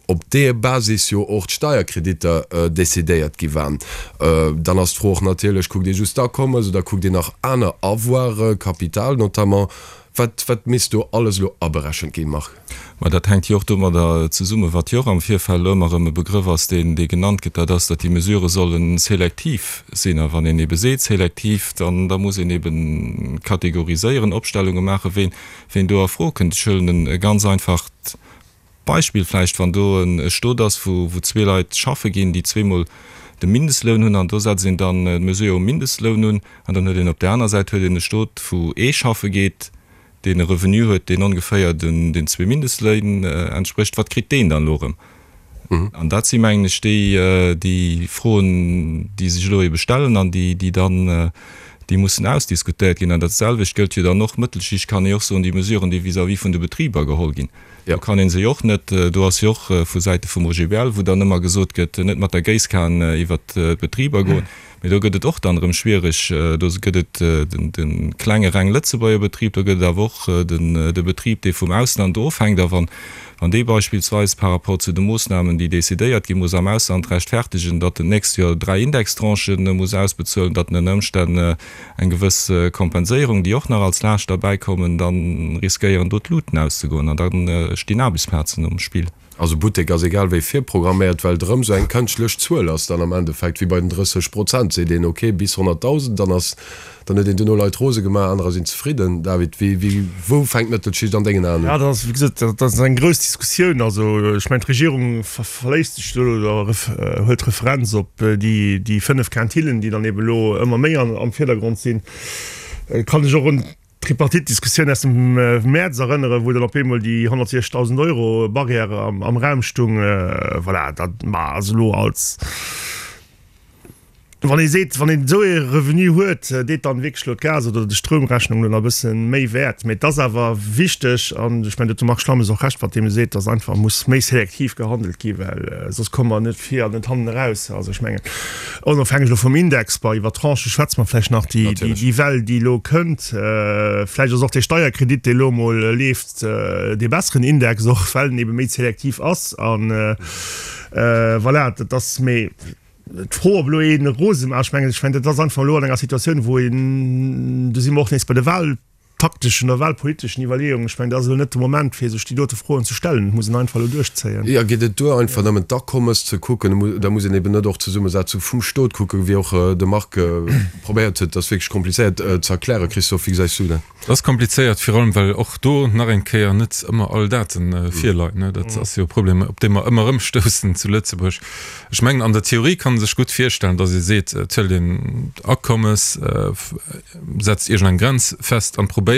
[SPEAKER 3] op deeër Basis jo och d'Steierkreditter decidéiert gi waren? Dann ass d'Fro och natierlech, Kuckt ee just d'Akommes oder kuckt een nach aner Avoiren, Kapital notamment? Wat, wat misst do alles elo aberechent ginn, Marc?
[SPEAKER 4] Mä dat hänkt jo och domadder zesummen, wat jo och am Virfeld elo ëmmer erëm e Begrëff ass, deen, dee genannt gëtt, dat ass, datt déi Mesurë solle selektiv sinn. A wann een ebe seet selektiv, dann, da muss een ebe kategoriséieren, Opstellunge maachen, ween, ween do a Fro kënnt. Ech huelen e ganz einfacht Beispill vläicht, Wann do e Stot ass, wou, wou zwee Leit schaffe ginn, déi zweemol de Mindestloun hunn, an do setzt een dann d'Mesure um Mindestloun un, an dann huet een op där aner Säit huet een e Stot, wou ee schaffe geet, deen e Revenu huet, deen ongeféier den zwee Mindestléin entsprécht, wat kritt deen dann elo erëm? An dat si mengen ech déi, déi Froen, déi sech elo ebe stellen an déi, déi dann, déi mussen ausdiskutéiert ginn. An dat selwecht gëllt jo dann och, Mëttelschicht kann ee och soen, déi Mesuren, déi vis-à-vis vun de Betriber geholl ginn, do kann ee se jo och net, do ass jo och vu Säite vum OGBL, wou dann ëmmer gesot gëtt, net mat der Géisskan iwwert d'Betriber goen. Mee do gëtt et och dann erëm schwiereg. Do gëtt et de klenge reng Lëtzebuerger Betrib, do gëtt et awer och de Betrib, dee vum Ausland ofhänkt. A wann dee beispillsweis par rapport zu de Moossnamen, déi decidéiert ginn, muss am Ausland rechtfertegen, datt en d'nächst Joer 3 Indextranchen muss ausbezuelen, datt en ënner Ëmstänn eng gewëss Kompenséierung, déi och nach als Laascht derbäikommen, da riskéieren do d'Luten auszegoen an da stinn Aarbechtsplazen um Spill.
[SPEAKER 3] Also Buttek ass egal wéi virprogramméiert, well et erëm esou eng kënschtlech Zuel ass dann am Endeffekt, wéi bei den 30 Prozent, seet een ok bis 100.000, dann ass, dann huet een duerno Leit rose gemaach, anerer sinn zefridden. David, wéi, wéi, wou fänkt d'Mëttelschicht an dengen Aen un?
[SPEAKER 5] Ja, dat ass, wéi gesot, dat ass eng grouss Diskussioun. Also ech mengen, d'Regierung verléisst sech do oder huelt Referenz op déi, déi 5 Quintillen, déi dann ebe lo ëmmer méi am Virdergrond sinn. Kann ech och un D'Tripartite-Diskussioun aus dem Mäerz erënneren, wou dann op eemol déi 160.000 Euro Barrière am Raum stung. Voilà, dat ma ass elo als, wann ee seet, wann een esou ee Revenu huet, deet dann wierklech elo d'Gas oder de Stroumrechnung elo nach e bësse méi wäert. Mee et ass awer wichteg, an ech mengen, do huet de Marc Schlammes och Recht, mat deem e seet, datt einfach muss méi selektiv gehandelt gi well soss komme mer net vir an net hannen eraus. Also ech mengen, Onofhängeg elo vum Index, bon, iwwer Tranchë schwätze mer vläicht nach, déi, déi Well, déi elo kënnt, vläicht ass och dee Steierkredit, dee elo emol leeft, dee besseren Index, och well en ebe méi selektiv ass. A voilà, dat ass, mee d'Fro, ob elo ee rose maach, ech mengen, ech mengen, dat ass einfach elo an enger Situatioun, wou een, do si mer och nees bei de Wahl, takteschen oder wahlpoliteschen Iwwerleeungen. Ech mengen, dat ass elo net de Moment, fir sech déi dote Froen ze stellen. Et muss een einfach elo duerchzéien.
[SPEAKER 3] Jo, geet et duer, einfach nëmmen d'Akommes ze kucken? Da muss een eben net och d'Zesummesetzung vum Stot kucken, wéi och de Marc probéiert huet. Dat ass wierklech komplizéiert ze erklären. Christophe, wéi gesäis du dat?
[SPEAKER 6] Dat ass komplizéiert, virun allem well och do nach eng Kéier net ëmmer all Date virleien. Dat ass jo e Problem, op dee mer ëmmer erëm stoussen zu Lëtzebuerg. Ech mengen, an der Theorie kann ee sech gutt virstellen, datt ee seet, et huelt een d'Akommes, setzt iergend eng Grenz fest an probéiert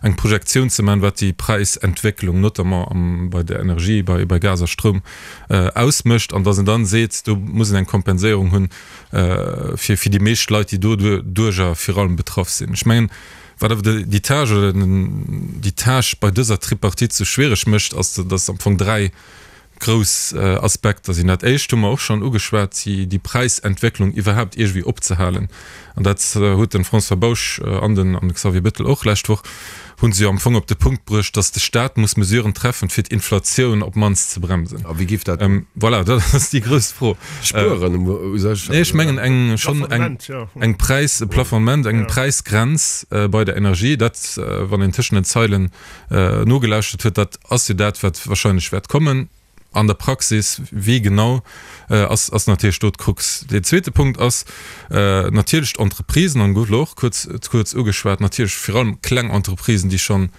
[SPEAKER 6] eng Projektioun ze man, wat déi Präisentwécklung notamment am bei der Energie, bei bei Gas a Stroum ausmécht an dass en dann seet, do muss en eng Kompenséierung hunn fir fir déi meescht Leit, déi doduerjer vir allem betraff sinn. Ech mengen, wat awer déi Tâche oder déi Tâche bei dëser Tripartite sou schwiereg mécht, ass, dass am Fong 3 grouss Aspekter sinn. Dat éischt hu mer och schonn ugeschwat, déi Präisentwécklung iwwerhaapt iergendwéi opzehalen. An dat huet de François Bausch an den Xavier Bettel och lescht Woch, hu se jo am Fong op de Punkt bruecht, datt de Staat muss Mesuren treffen, fir d'Inflatioun op d'mannst ze bremsen.
[SPEAKER 3] A wéi giff dat?
[SPEAKER 6] Voilà, dat ass déi grouss Fro.
[SPEAKER 3] Spueren u
[SPEAKER 6] sech? Nee, ech mengen eng schonn eng Präis, e Plafonnement, eng Präisgrenz bei der Energie. Dat, wann een tëschent den Zeilen nogelauschtert huet, dat ass jo dat, wat wahrscheinlech wäert kommen. An der Praxis, wéi genau, ass, ass natierlech do d'Krux. Deen zweete Punkt ass natierlech d'Entreprisen, an gouf elo och kuerz, kuerz ugeschwat, natierlech vir allem kleng Entreprisen, déi schonn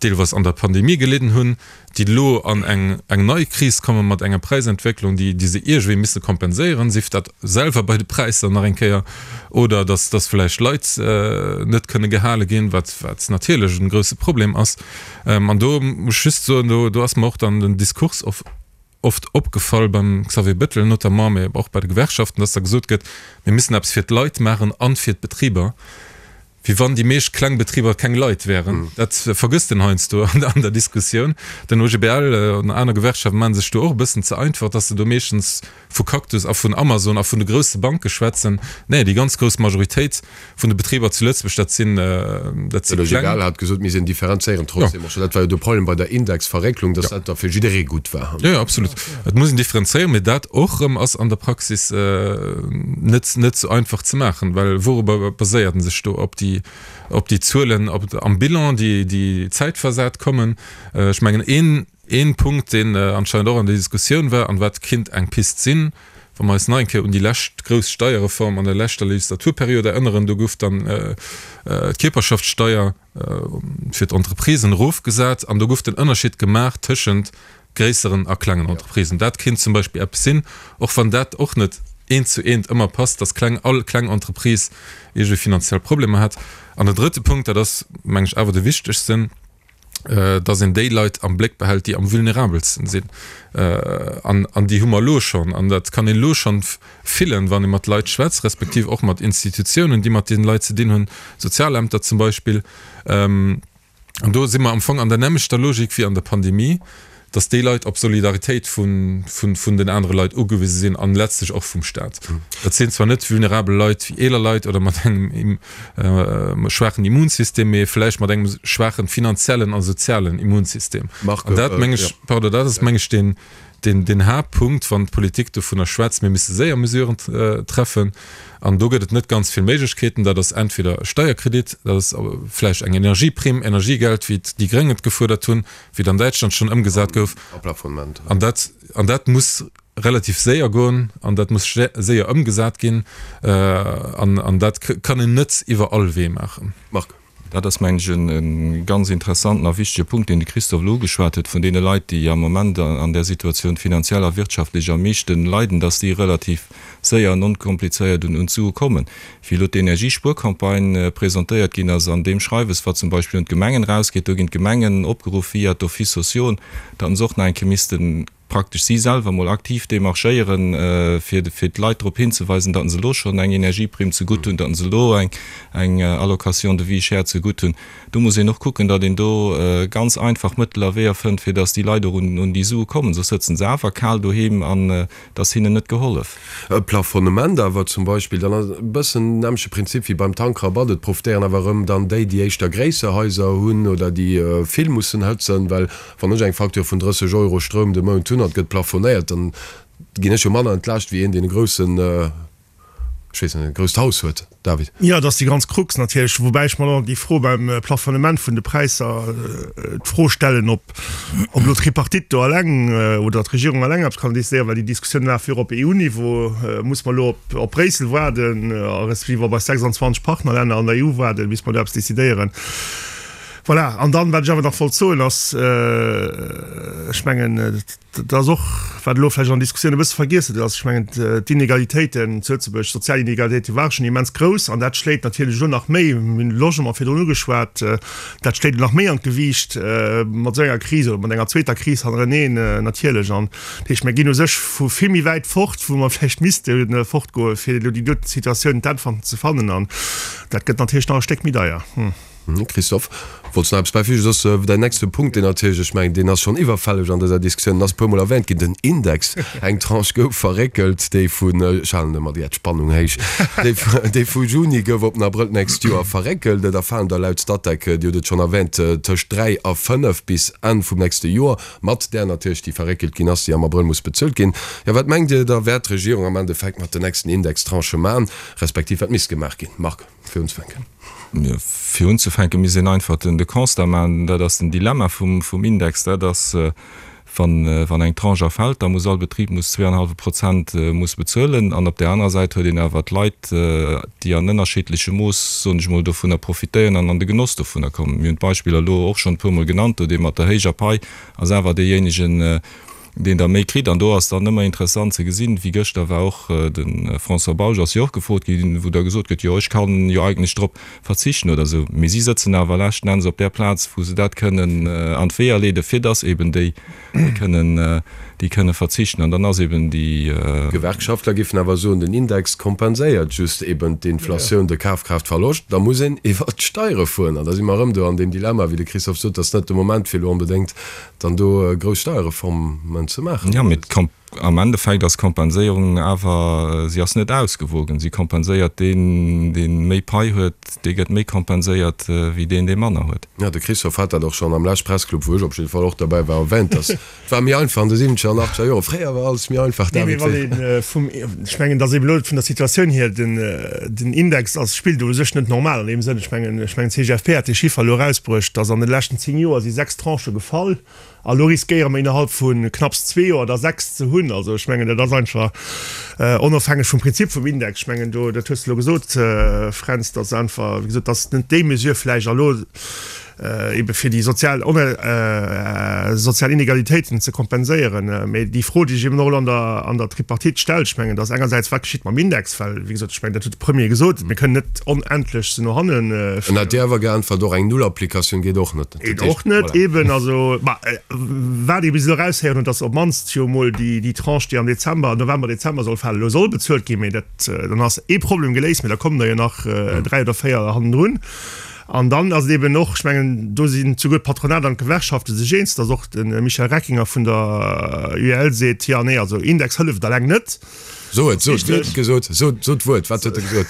[SPEAKER 6] deelweis an der Pandemie gelidden hunn, déi elo an eng, eng nei Kris komme mat enger Präisentwécklung, déi, déi se iergendwéi misse kompenséieren, sief dat selwer bei de Präisser nach eng Kéier oder dass, dass vläicht Leit net kënne gehale ginn, wat, wat natierlech e grouse Problem ass. An do muss ech just soen, do, do ass mer och dann den Diskurs of. oft opgefall beim Xavier Bettel notamment, mee och bei de Gewerkschaften, dass da gesot gëtt, mir müssen eppes fir d'Leit maachen an fir d'Betriber, wéi wann déi meescht kleng Betriber keng Leit wären. Dat vergësst een heiansdo an der Diskussioun. Den OGBL an aner Gewerkschaften maache sech do och e bëssen ze einfach, dass se do meeschtens vu Cactus a vun Amazon a vun de grousse Banke schwätzen. Nee, déi ganz grouss Majoritéit vun de Betriber zu Lëtzebuerg, dat sinn, dat si
[SPEAKER 3] kleng. Den OGBL
[SPEAKER 6] hat
[SPEAKER 3] gesot, mir sinn differenzéieren trotzdem och. Dat war jo de Problem bei der Indexverrécklung, dass dat da fir jidderee gutt war.
[SPEAKER 6] Jo, jo, absolut. Et muss een differenzéieren, mee dat och erëm ass an der Praxis net, net esou einfach ze maachen, well wourobber baséiert en sech do? Op déi, op déi Zuelen op, am Bilan, déi, déi zäitversat kommen. Ech mengen, een, Een Punkt, deen anscheinend och an der Diskussioun war an wat kinnt eng Pist sinn, wa mer eis nach eng Kéier un déi lescht grouss Steierreform an der leschter Legislaturperiod erënneren, do gouf dann d'Kierperschaftssteier fir d'Entreprisen erofgesat an do gouf den Ënnerscheed gemaach tëschent gréisseren a klengen Entreprisen. Dat kinnt zum Beispill eppes sinn, och wann dat och net eent zu eent ëmmer passt, dass kleng, all kleng Entreprise iergendwéi finanziell Problemer hätt. An den drëtte Punkt, dat ass, meng ech, awer de wichtegsten, dass een déi Leit am Bléck behält, déi am vulnerabelsten sinn. An, an déi hu mer elo schonn. An dat kann een elo schonn fillen, wann ee mat Leit schwätzt, respektiv och mat Institutiounen, déi mat deenen Leit ze dinn hunn, Sozialämter zum Beispill. An do si mer am Fong an der nämmlechter Logik wéi an der Pandemie, dass déi Leit op Solidaritéit vun den anere Leit ugewise sinn an letztlech och vum Staat. Dat sinn zwar net vulnerabel Leit wéi eeler Leit oder mat engem schwaachen Immunsystem, mee vläicht mat engem schwaachen finanziellen a sozialen Immunsystem. An dat meng ech, pardon, dat ass meng ech deen, deen Haaptpunkt, wann d'Politik dovunner schwätzt, mir misse séier Mesuren treffen. An do gëtt et net ganz vill Méiglechkeeten. Dat ass entweder e Steierkredit, dat ass vläicht eng Energieprimm, Energiegeld, wéi déi Gréng et gefuerdert hunn, wéi et an Däitschland schonn ëmgesat gouf. An dat, an dat muss relativ séier goen an dat muss séier ëmgesat ginn. An, an dat kann een net iwwer all Wee maachen.
[SPEAKER 4] Marc. Dat ass, mengen ech, e ganz interessanten a wichtege Punkt, deen de Christophe elo ugeschwat huet, vun deene Leit, déi am Moment an där Situatioun finanziell a wirtschaftlech am meeschten leiden, dass déi relativ séier an onkomplizéiert un d'Sue kommen. Wéi elo d'Energiespuercampagne presentéiert ginn ass, an deem Schreiwes, wat zum Beispill un d'Gemengen erausgeet, do ginn d'Gemengen opgeruff via d'Offices sociaux, datt se och nach eng Kéier misste praktesch si selwer mol aktiv demarchéieren, fir fir d'Leit drop hinzeweisen, datt se elo schonn eng Energieprimm zegutt hunn, datt se elo eng eng Allocation de vie chère zegutt hunn. Do muss een och kucken, datt een do ganz einfach Mëttel a Weeër fënnt, fir datt déi Leit och un un déi Sue kommen, soss sëtzen se awer kal doheem an Et ass hinnen net gehollef.
[SPEAKER 3] E Plafonnement awer zum Beispill, dann ass e bëssen den nämmleche Prinzip wéi beim Tankrabatt, et profitéieren awer erëm dann déi, déi éischter gréisser Haiser hunn oder déi vill mussen hëtzen, well wann ech eng Facture vun 30 Euro Stroum de Mount hunn an et gëtt plafonéiert, dann ginn ech jo manner entlaascht wéi een, deen e groussen, ech weess net, e grousst Haus huet. David.
[SPEAKER 5] Jo, et ass déi ganz Krux natierlech, woubäi ech mer och déi Fro beim Plafonnement vun de Präisser d'Fro stellen, ob elo d'Tripartite do eleng oder d'Regierung eleng eppes kann decidéieren, well déi Diskussioun laf jo och op EU-Niveau. Muss mer elo op Bréissel waarden, respektiv op eis 26 Partnerlänner an der EU waarden, bis mer do eppes decidéieren? Voilà. An dann, wat ech awer nach wollt soen, ass, ech mengen, Dat ass och, wat elo vläicht an der Diskussioun e bësse vergiess gëtt, ass, ech mengen, d'Inegalitéiten zu Lëtzebuerg, d'sozial Inegalitéite ware schonn immens grouss an dat schléit natierlech elo nach méi, mir hunn de Logement virdrun ugeschwat, dat schléit elo nach méi an d'Gewiicht mat esou enger Kris oder mat enger zweeter Kris hannereneen natierlech. An dat heescht, mir ginn u sech vu vill méi wäit fort, wou mer vläicht misste fortgoen, fir elo déi doten Situatioun d'Äntwerten ze fannen. An dat gëtt natierlech nach e Stéck méi deier.
[SPEAKER 3] Christophe, wollts nach eppes bäifügen? Soss däin nächste Punkt, deen natierlech, ech mengen, deen ass schonn iwwerfälleg an dëser Diskussioun, en ass e puermol erwähnt ginn, den Index. Eng Tranche gouf verréckelt, déi vun, ech halen ëmmer déi Spannung héich, déi vu Juni gouf op den Abrëll d'nächst Joer verréckelt. Et erfalen der laut Statec, Dir hutt et schonn erwähnt, tëscht 3 a 5 bis Enn vum nächste Joer, mat där natierlech, déi verréckelt ginn ass, déi am Abrëll muss bezuelt ginn. Jo, wat mengt Dir da wäert d'Regierung am Endeffekt mat den nächsten Indextranchë maachen, respektiv wat misst gemaach ginn? Marc. Fir unzefänken.
[SPEAKER 4] Fir unzefänke misst een einfach den de Constat maachen, dat ass den Dilemma vum vum Index, dat ass, wann wann eng Tranche erfält, da muss all Betrib muss zweeanenhallwe Prozent muss bezuelen an op där anerer Säit huet een awer d'Leit, déi an ënnerschiddlechem Mooss, soen ech emol, dovunner profitéieren an an de Genoss dovunner kommen. Mir hunn d'Beispiller elo och schonn e puermol genannt, do dee mat der héijer Pai ass awer deejéinegen, deen da méi kritt. An do ass dann ëmmer interessant ze gesinn, wéi gëschter war och de François Bausch ass jo och gefrot ginn, wou da gesot gëtt, jo ech kann jo eigentlech drop verzichten oder esou. Mee si sëtzen awer leschten Enns op där Plaz, wou se dat kënnen an d'Weeër leeden, fir datt eben déi kënnen, Déi kënne verzichten an dann ass eben déi.
[SPEAKER 3] D'Gewerkschaftler géifen awer soen, den Index kompenséiert just eben d'Inflatioun, de Kafkraaftverloscht. Da muss een iwwert d'Steiere fueren. An da si mer erëm do an deem Dilemma, wéi de Christophe sot, et ass net de Moment fir elo onbedéngt dann do grouss Steierreformen ze maachen.
[SPEAKER 4] Jo, mee am Endeffekt ass d'Kompenséierung awer, si ass net ausgewogen. Si kompenséiert deen, dee méi Pai huet, dee gëtt méi kompenséiert wéi deen, dee manner huet.
[SPEAKER 3] Jo, de Christophe hat dat och schonn am lescht Pressclub, wou ech op jidde Fall och derbäi war, erwähnt, dass Et war méi einfach an de siwwenzeger an achtzeger Joren. Fréier war alles méi einfach,
[SPEAKER 5] Nee, mee
[SPEAKER 3] David.
[SPEAKER 5] wann ee vum, ech mengen, dass eben elo vun der Situatioun hier den, den Index ass, spillt u sech net normal an deem Sënn. Ech mengen, ech mengen d'CGFP hat dee Chiffer elo erausbruecht, dass an de leschten 10 Joer si 6 Tranchë gefall a elo riskéiere mer innerhalb vu knapps zwee Joer der 6 ze hunn. Also ech mengen, dat ass einfach onofhängeg vum Prinzip vum Index. Ech mengen do, dat hues de elo gesot, Fränz, dass einfach, wéi gesot, dass net déi Mesure vläicht elo, ebe fir déi sozial sozial Inegalitéiten ze kompenséieren. Mee déi Fro, déi sech eben och elo an der an der Tripartite stellt, ech mengen, dat ass engersäits, wat geschitt mam Index, well, wéi gesot, ech mengen, dat huet de Premier gesot, mir kënnen net onendlech se no hanne
[SPEAKER 3] En hat Dir awer geäntwert, och eng Nullapplikatioun geet och net.
[SPEAKER 5] Geet och net, eben. Also, ma wat ee bis elo eraushéieren huet, datt op d'mannst jo emol déi déi Tranche, déi am Dezember, November, Dezember soll falen, elo soll bezuelt ginn. Mee dat, dann ass ee Problem geléist, mee da kommen der jo nach 3 oder 4 hannendrun. An dann ass et eben och, ech mengen, do sinn souguer d'Patronat an d'Gewerkschafte sech eens, datt och de Michel Reckinger vun der UEL seet, jo, nee, also Index hëlleft eleng net.
[SPEAKER 3] So et, so et, wéi huet en gesot? So, so d'Wuert, wat huet e gesot?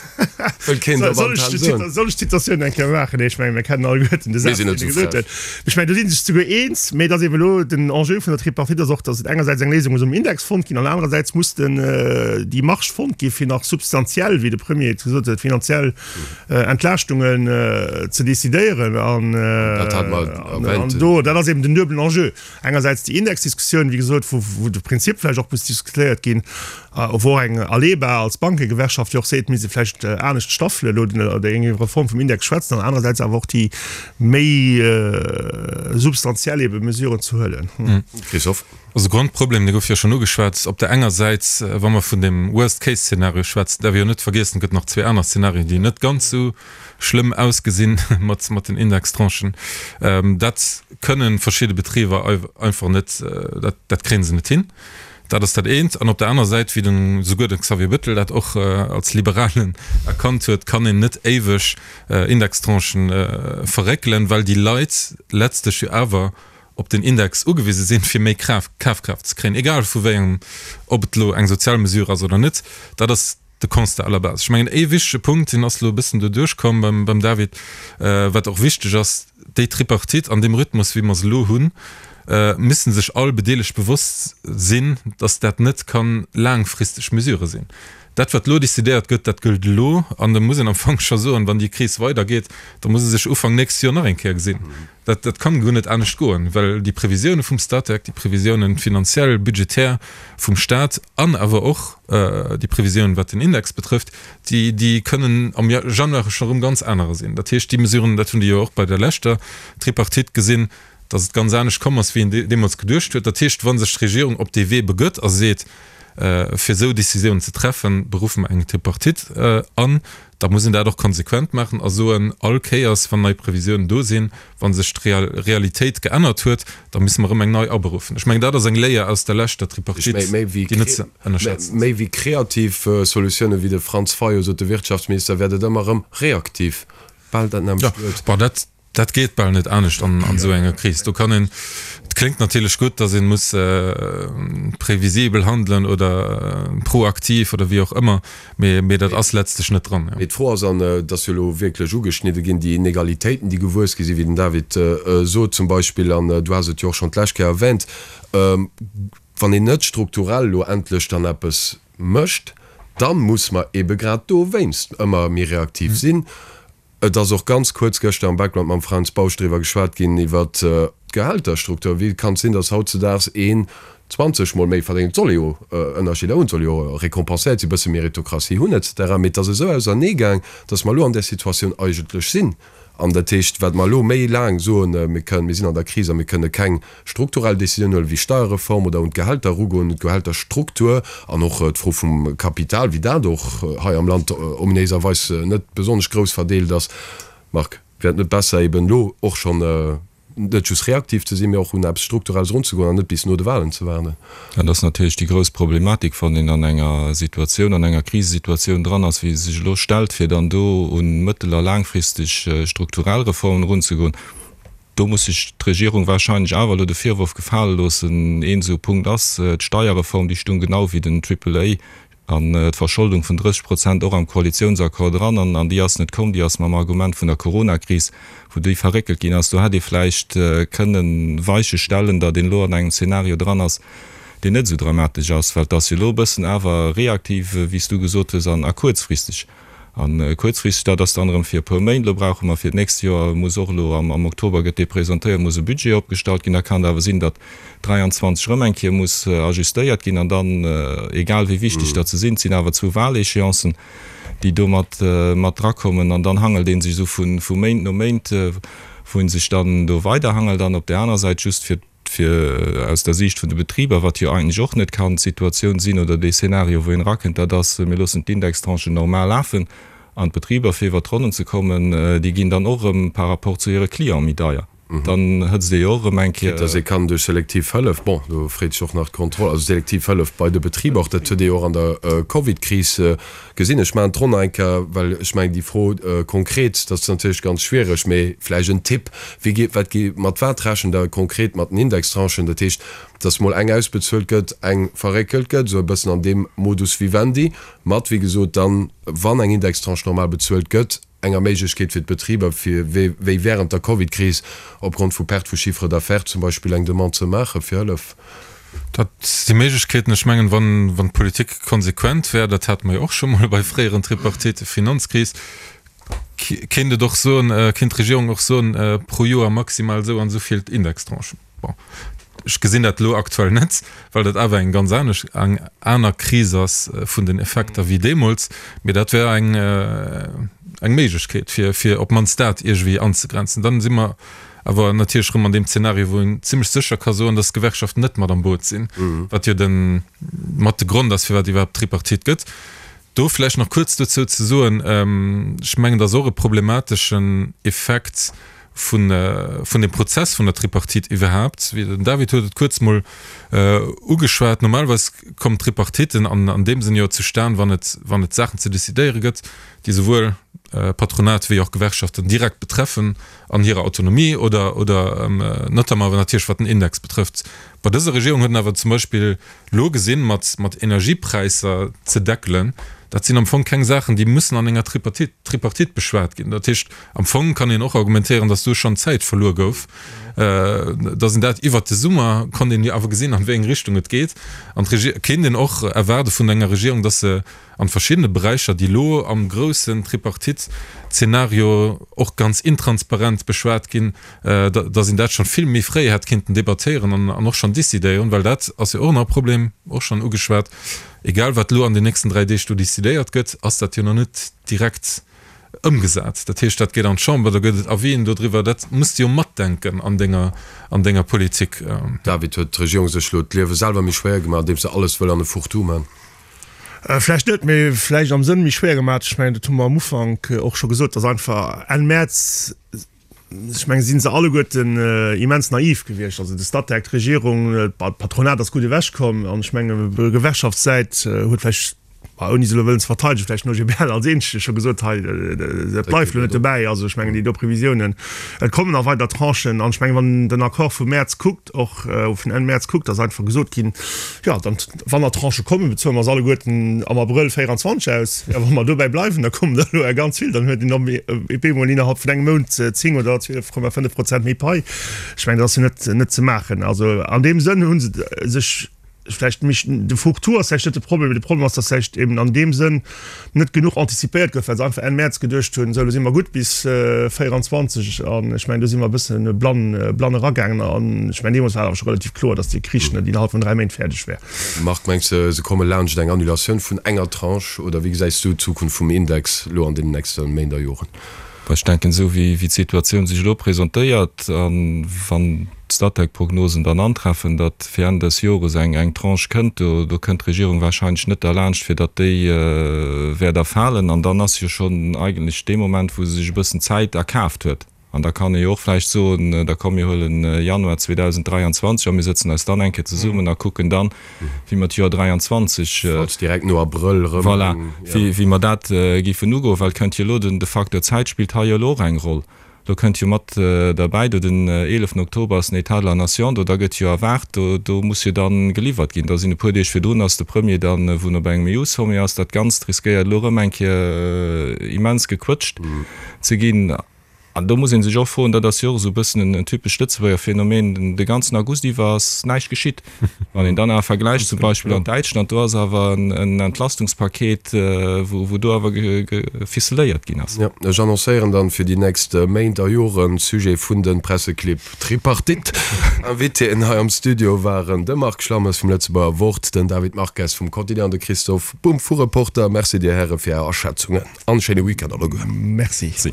[SPEAKER 3] Wëll keen op Antenn soen.
[SPEAKER 5] Soll ech d'Zitatioun eng Kéier maachen? Nee, ech mengen, mir kennen alleguerten de Saz, deen e gesot huet. Ech mengen, do si sech souguer eens, mee et ass eben elo den Enjeu vun der Tripartite ass och, datt et engersäits eng Léisung muss um Index fonnt ginn an anerersäits muss den, déi Marge fonnt gi fir nach substantiell, wéi de Premier et gesot huet, finanziell Entlaaschtungen ze decidéieren an do, dat ass eben den duebelen Enjeu, engersäits déi Indexdiskussioun, wéi gesot, wou de Prinzip vläicht och muss diskutéiert ginn, wou och eng Aleba als Bankegewerkschaft jo och seet, misst ee vläicht anescht staffele elo oder eng Reform vum Index schwätzen, an anerersäits awer och déi méi substantiell ebe Mesuren ze huelen.
[SPEAKER 3] Christophe.
[SPEAKER 6] Also Grondproblem, dee gouf jo schonn ugeschwat, op der enger Säit, wa mer vun deem Worst-Case-Szenario schwätzen, däerf ee jo net vergiessen, et gëtt nach zwee aner Szenarien, déi net ganz esou schlëmm ausgesinn mat mat den Indextranchen. Dat kënnen verschidde Betriber einfach net, dat dat kréie se net hin. Dat ass dat eent. An op der aner Säit, wéi den souguer de Xavier Bettel dat och als Liberalen erkannt huet, kann een net éiweg Indextranchen verréckelen, well déi Leit letztlech jo awer op den Index ugewise sinn, fir méi Kafkraaft ze kréien, egal vu wéi engem, ob et elo eng sozial Mesure ass oder net. Dat ass de Constat à la base. Ech mengen, ee wichtege Punkt, deen ass elo e bëssen do duerchkomm beim, beim David, wat och wichteg ass, Déi Tripartite an deem Rhythmus, wéi mer se elo hunn, müssen sech all Bedeelegt bewosst sinn, dass dat net ka laangfristeg Mesure sinn. Dat, wat elo decidéiert gëtt, dat gëllt elo. An da muss een am Fong scho soen, wann déi Kris weidergeet, da muss ee sech Ufank nächst Joer nach eng Kéier gesinn. Dat, dat kann guer net anescht goen, well déi Previsioune vum Statec, déi Previsiounen finanziell, budgetär vum Stat an awer och déi Previsiounen, wat den Index betrëfft, déi, déi kënnen am Januar scho erëm ganz anerer sinn. Dat heescht, déi Mesuren, dat hunn déi jo och bei der leschter Tripartite gesinn, dass et ganz anescht komm ass, wéi een deemools geduecht huet. Dat heescht, wa sech d'Regierung op dee Wee begëtt a seet, fir esou Décisiounen ze treffen, beruffe mer eng Tripartite an, Da muss een dat och konsequent maachen a soen, all Kéiers, wann nei Previsiounen do sinn, wa sech d'Realitéit geännert huet, da musse mer erëm eng nei aberuffen. Ech mengen, dat ass eng Léier aus der leschter Tripartite, déi net ze ënnerschätzen
[SPEAKER 3] ass. Méi wéi kreativ Solutiounen, wéi de Franz Fayot sot, de Wirtschaftsminister, wäert et ëmmer erëm reaktiv, bal dat nämmlecht
[SPEAKER 6] Wuert. Dat geet bal net anescht an esou enger Kris. Do kann een, et kléngt natierlech gutt, datt ee muss previsibel handelen oder proaktiv oder wéi och ëmmer, mee dat ass letztlech net dran.
[SPEAKER 3] Mee d'Fro ass, an et ass jo elo wierklech ugeschnidde ginn, déi Inegalitéiten, déi gewuess gi sinn, wéi den David sot zum Beispill, an du has et jo och schonn d'lescht Kéier erwähnt, wann een net strukturell elo endlech dann eppes mécht, da muss mer eebe grad dowéinst ëmmer méi reaktiv sinn. Et ass och ganz kuerz gëschter am Background mam Fränz Bausch driwwer geschwat ginn, iwwer d'Gehälterstruktur. Wéi kann et sinn, datt hautzedaags een 20 mol méi verdéngt? Et soll ee jo Ënnerscheeder hunn, et soll jo récompenséiert sinn, e bësse Meritokratie hunn et cetera. Mee et ass esou auserneegaang, datt mer elo an där Situatioun eigentlech sinn. An dat heescht, wat mer elo méi laang soen, mir kënnen, mir sinn an der Kris a mir kënne keng strukturell Décisioun huelen, wéi Steierreform oder un d'Gehälter erugoen, un d'Gehälterstruktur an och d'Fro vum Kapital, wéi dat och hei am Land ominéiserweis net besonnesch grouss verdeelt ass. Marc, wär et net besser eben elo och schonn. Net just reaktiv ze sinn, mee och un eppes Strukturelles erunzegoen an net bis no de Wahlen ze waarden.
[SPEAKER 4] Dat ass natierlech déi grouss Problematik, wann een an enger Situatioun, an enger Krisesituatioun dran ass, wéi se sech elo stellt, fir dann do un mëttel a laangfristeg strukturell Reformen erunzegoen. Do muss sech d'Regierung wahrscheinlech awer elo de Virworf gefale loossen, een esou Punkt ass d'Steierreform, déi stung genau wéi den Triple A An d'Verscholdung vun 30 Prozent och am Koalitiounsaccord dran. An déi ass net komm. Déi ass mam Argument vun der Coronakris, wou déi verréckelt ginn ass. Do hätt ee vläicht kënnen Weiche stellen, datt een elo an engem Zeenario dran ass, deen net esou dramatesch ass. Well et ass jo elo e bëssen awer reaktiv, wéi s du gesot hues, an a kuerzfristeg. A kuerzfristeg, dat ass dann erëm fir e puer Méint. Elo brauche mer fir d'nächst Joer, muss och elo am Oktober gëtt dee presentéiert, muss e Budget opgestallt ginn. Da kann et awer sinn, datt 23 erëm eng Kéier muss ajustéiert ginn. An dann, egal wéi wichteg datt se sinn, et sinn awer zwou Wahléchéancen, déi do mat mat drakommen. An dann hangelt ee sech esou vu Méint no Méint, wou ee sech dann do weiderhangelt. An op där aner Säit, just fir fir aus der Siicht vun de Betriber, wat jo eigentlech och net kann d'Situatioun sinn oder dee Szenario, wou een erakënnt, dat ass, mir loossen d'Indextranchen normal lafen an d'Betriber, fir iwwert d'Ronnen ze kommen, déi ginn dann och erëm par rapport zu hire Cliente méi deier. Dann hëtzt ee jo och erëm eng Kéier.
[SPEAKER 3] Quitte dass ee kann duerch selektiv Hëllef, bon, do freet sech och nach d'Kontroll, also selektiv Hëllef bei de Betriber, och dat huet ee jo och an der Covidkris gesinn. Ech maachen d'Ronn nach eng Kéier, well ech mengen déi Fro konkret, dat ass natierlech ganz schwiereg, mee vläicht en Tipp, Wéi geet, wat gi, mat wat rechent Der konkret mat den Indextranchen? Dat heescht, dass mol eng ausbezuelt gëtt, eng verréckelt gëtt, esou e bëssen an deem Modus vivendi, mat, wéi gesot, dann, wann eng Indextranche normal bezuelt gëtt, enger Méiglechkeet fir d'Betriber, fir wéi während der Covidkris opgrond vu Perte vu Chiffre d'affaires zum Beispill eng Demande ze maache fir Hëllef.
[SPEAKER 6] Dat si Méiglechkeeten. Ech mengen, wann, wann d'Politik konsequent wär, dat hate mer jo och scho mol bei fréieren Tripartite, Finanzkris, kéint et och soen, kéint d'Regierung och soen, pro Joer maximal esou an esou vill Indextranchen. Bon, ech gesinn dat elo aktuell net, well dat awer eng ganz anesch, eng aner Kris ass vun den Effekter wéi deemools. Mee dat wär eng, eng Méiglechkeet, fir, fir op d'mannst dat iergendwéi anzegrenzen. Dann si mer awer natierlech erëm an deem Zeenario, wou een zimlech sécher ka soen, dass d'Gewerkschaften net mat am Boot sinn, wat jo de mat de Grond ass, firwat iwwerhaapt d'Tripartite gëtt. Do vläicht nach kuerz dozou ze soen, ech mengen, dat ass och e problemateschen Effekt vun vun dem Prozess vun der Tripartite iwwerhaapt. Wéi den David huet et kuerz mol ugeschwat, normalerweis kommen d'Tripartiten an an deem Sënn jo zustan, wann et wann et Saachen ze decidéiere gëtt, déi souwuel Patronat wéi och Gewerkschaften direkt betreffen an hirer Autonomie oder oder notamment awer natierlech wat den Index betrëfft. Bei dëser Regierung huet en awer zum Beispill elo gesinn, mat mat Energiepräisser ze deckelen, dat sinn am Fong keng Saachen, déi mussen an enger Tripartite Tripartite beschwat ginn. Dat heescht, am Fong kann een och argumentéieren, datt do schonn Zäit verluer gouf, datt een dat iwwert de Summer konnt een jo awer gesinn, an wéi eng Richtung et geet. An d'Regie kéint een och erwaarde vun enger Regierung, datt se an verschiddene Beräicher, déi elo am groussen Tripartite-Zeenario och ganz intransparent beschwat ginn, dass een dat schonn vill méi fréi hätt kinnten debattéieren an och schonn décidéieren, well dat ass jo och nach e Problem, och schonn ugeschwat, egal wat elo an den nächsten 3 Deeg do décidéiert gëtt, ass dat jo nach net direkt ëmgesat. Dat heescht, dat geet an d'Chamber, da gëtt et Avisen dodriwwer, dat muss de jo matdenken an denger, an denger Politik.
[SPEAKER 3] David, huet d'Regierung sech elo d'Liewe selwer méi schwéier gemaach, andeems se alles wëll an e Fourre-tout man?
[SPEAKER 5] Vläicht net, mee vläicht am Sënn méi schwéier gemaach. Ech mengen, dat hu mer am Ufank och scho gesot, dass einfach Enn Mäerz, ech mengen, si se alleguerten immens naiv gewiescht. Also de Statec, d'Regierung, d'Patronat ass gutt ewechkomm an ech mengen, Gewerkschaftssäit huet vläicht, ouni se elo wëllen ze verteidegen, vläicht den OGBL als eenzege scho gesot, hei, dat bleift elo net dobäi. Also ech mengen, déi do Previsiounen, et kommen nach weider Tranchen an ech mengen, wann een den Accord vum Mäerz kuckt, och vun Enn Mäerz kuckt, ass einfach gesot ginn, jo, dann, wann nach Tranchë kommen, bezuele mer se alleguerten am Abrëll 24 aus. Jo, wa mer dobäi bleiwen, da kommen der elo ganz vill, dann huet een op eemol innerhalb vun engem Mount 10 oder 12,5 Prozent méi Pai. Ech mengen, dat ass jo net, net ze maachen. Also an deem Sënn hu se sech vläicht méi, de Fourre-tout ass vläicht net de Problem, mee de Problem ass, dass vläicht eben an deem Sënn net genuch antizipéiert gouf, well se einfach Enn Mäerz geduecht hunn, esou elo si mer gutt bis 24. An ech mengen, do si mer e bësse blann, blann eragaangen. An ech mengen, deemools war et awer scho relativ kloer, datt dee Krich net innerhalb vun 3 Méint fäerdeg wär.
[SPEAKER 3] Marc, mengs de, se komme laanscht eng Annulatioun vun enger Tranche oder wéi gesäis du d'Zukunft vum Index elo an deenen nächste Méint a Joren?
[SPEAKER 4] Ech denken, esou wéi d'Situatioun sech elo presentéiert a wann d'Statec-Prognosen dann antreffen, datt fir Enn dës Jores eng eng Tranche kënnt, do do kënnt d'Regierung wahrscheinlech net derlaanscht, fir datt déi wäert erfalen. An dann ass jo schonn eigentlech dee Moment, wou se sech e bëssen Zäit erkaaft huet. An da kann ee jo och vläicht soen, da komm mir huelen Januar 2023 a mir sëtzen eis dann eng Kéier zesummen a kucken dann, wéi mer d'Joer 23,
[SPEAKER 3] Falls direkt no Abrëll erëm,
[SPEAKER 4] voilà, wéi mer dat géifen ugoen, well et kënnt jo elo, den, de Facteur Zäit spillt hei jo elo och eng Roll. Elo kënnt jo mat derbäi, do den 11 Oktober ass den État de la Nation, do da gëtt jo erwaart, do, do muss jo dann geliwwert ginn. Da sinn e puer Deeg virdrun ass de Premier dann, wou en op engem EU-Sommet ass. Dat Ganzt riskéiert elo erëm eng Kéier immens gequëtscht ze ginn. An do muss ee sech och froen, dat ass jo och esou e bëssen en typescht Lëtzebuerger Phänomen, de ganzen August iwwer ass näischt geschitt. Wann een dann awer vergläicht zum Beispill an Däitschland, do ass awer en Entlastungspaket, wou do awer geficeléiert ginn ass.
[SPEAKER 3] Jo, ech annoncéieren dann fir déi nächst Méint a Joren Sujet vun de Presseclibb Tripartite. Invitéen hei am Studio waren de Marc Schlammes vum Lëtzebuerger Wort, den David Marques vum Quotidien an de Christophe Bumb vu Reporter. Merci dir Häre fir är Aschätzungen. An schéine Weekend alleguer.
[SPEAKER 5] Merci.
[SPEAKER 4] Merci.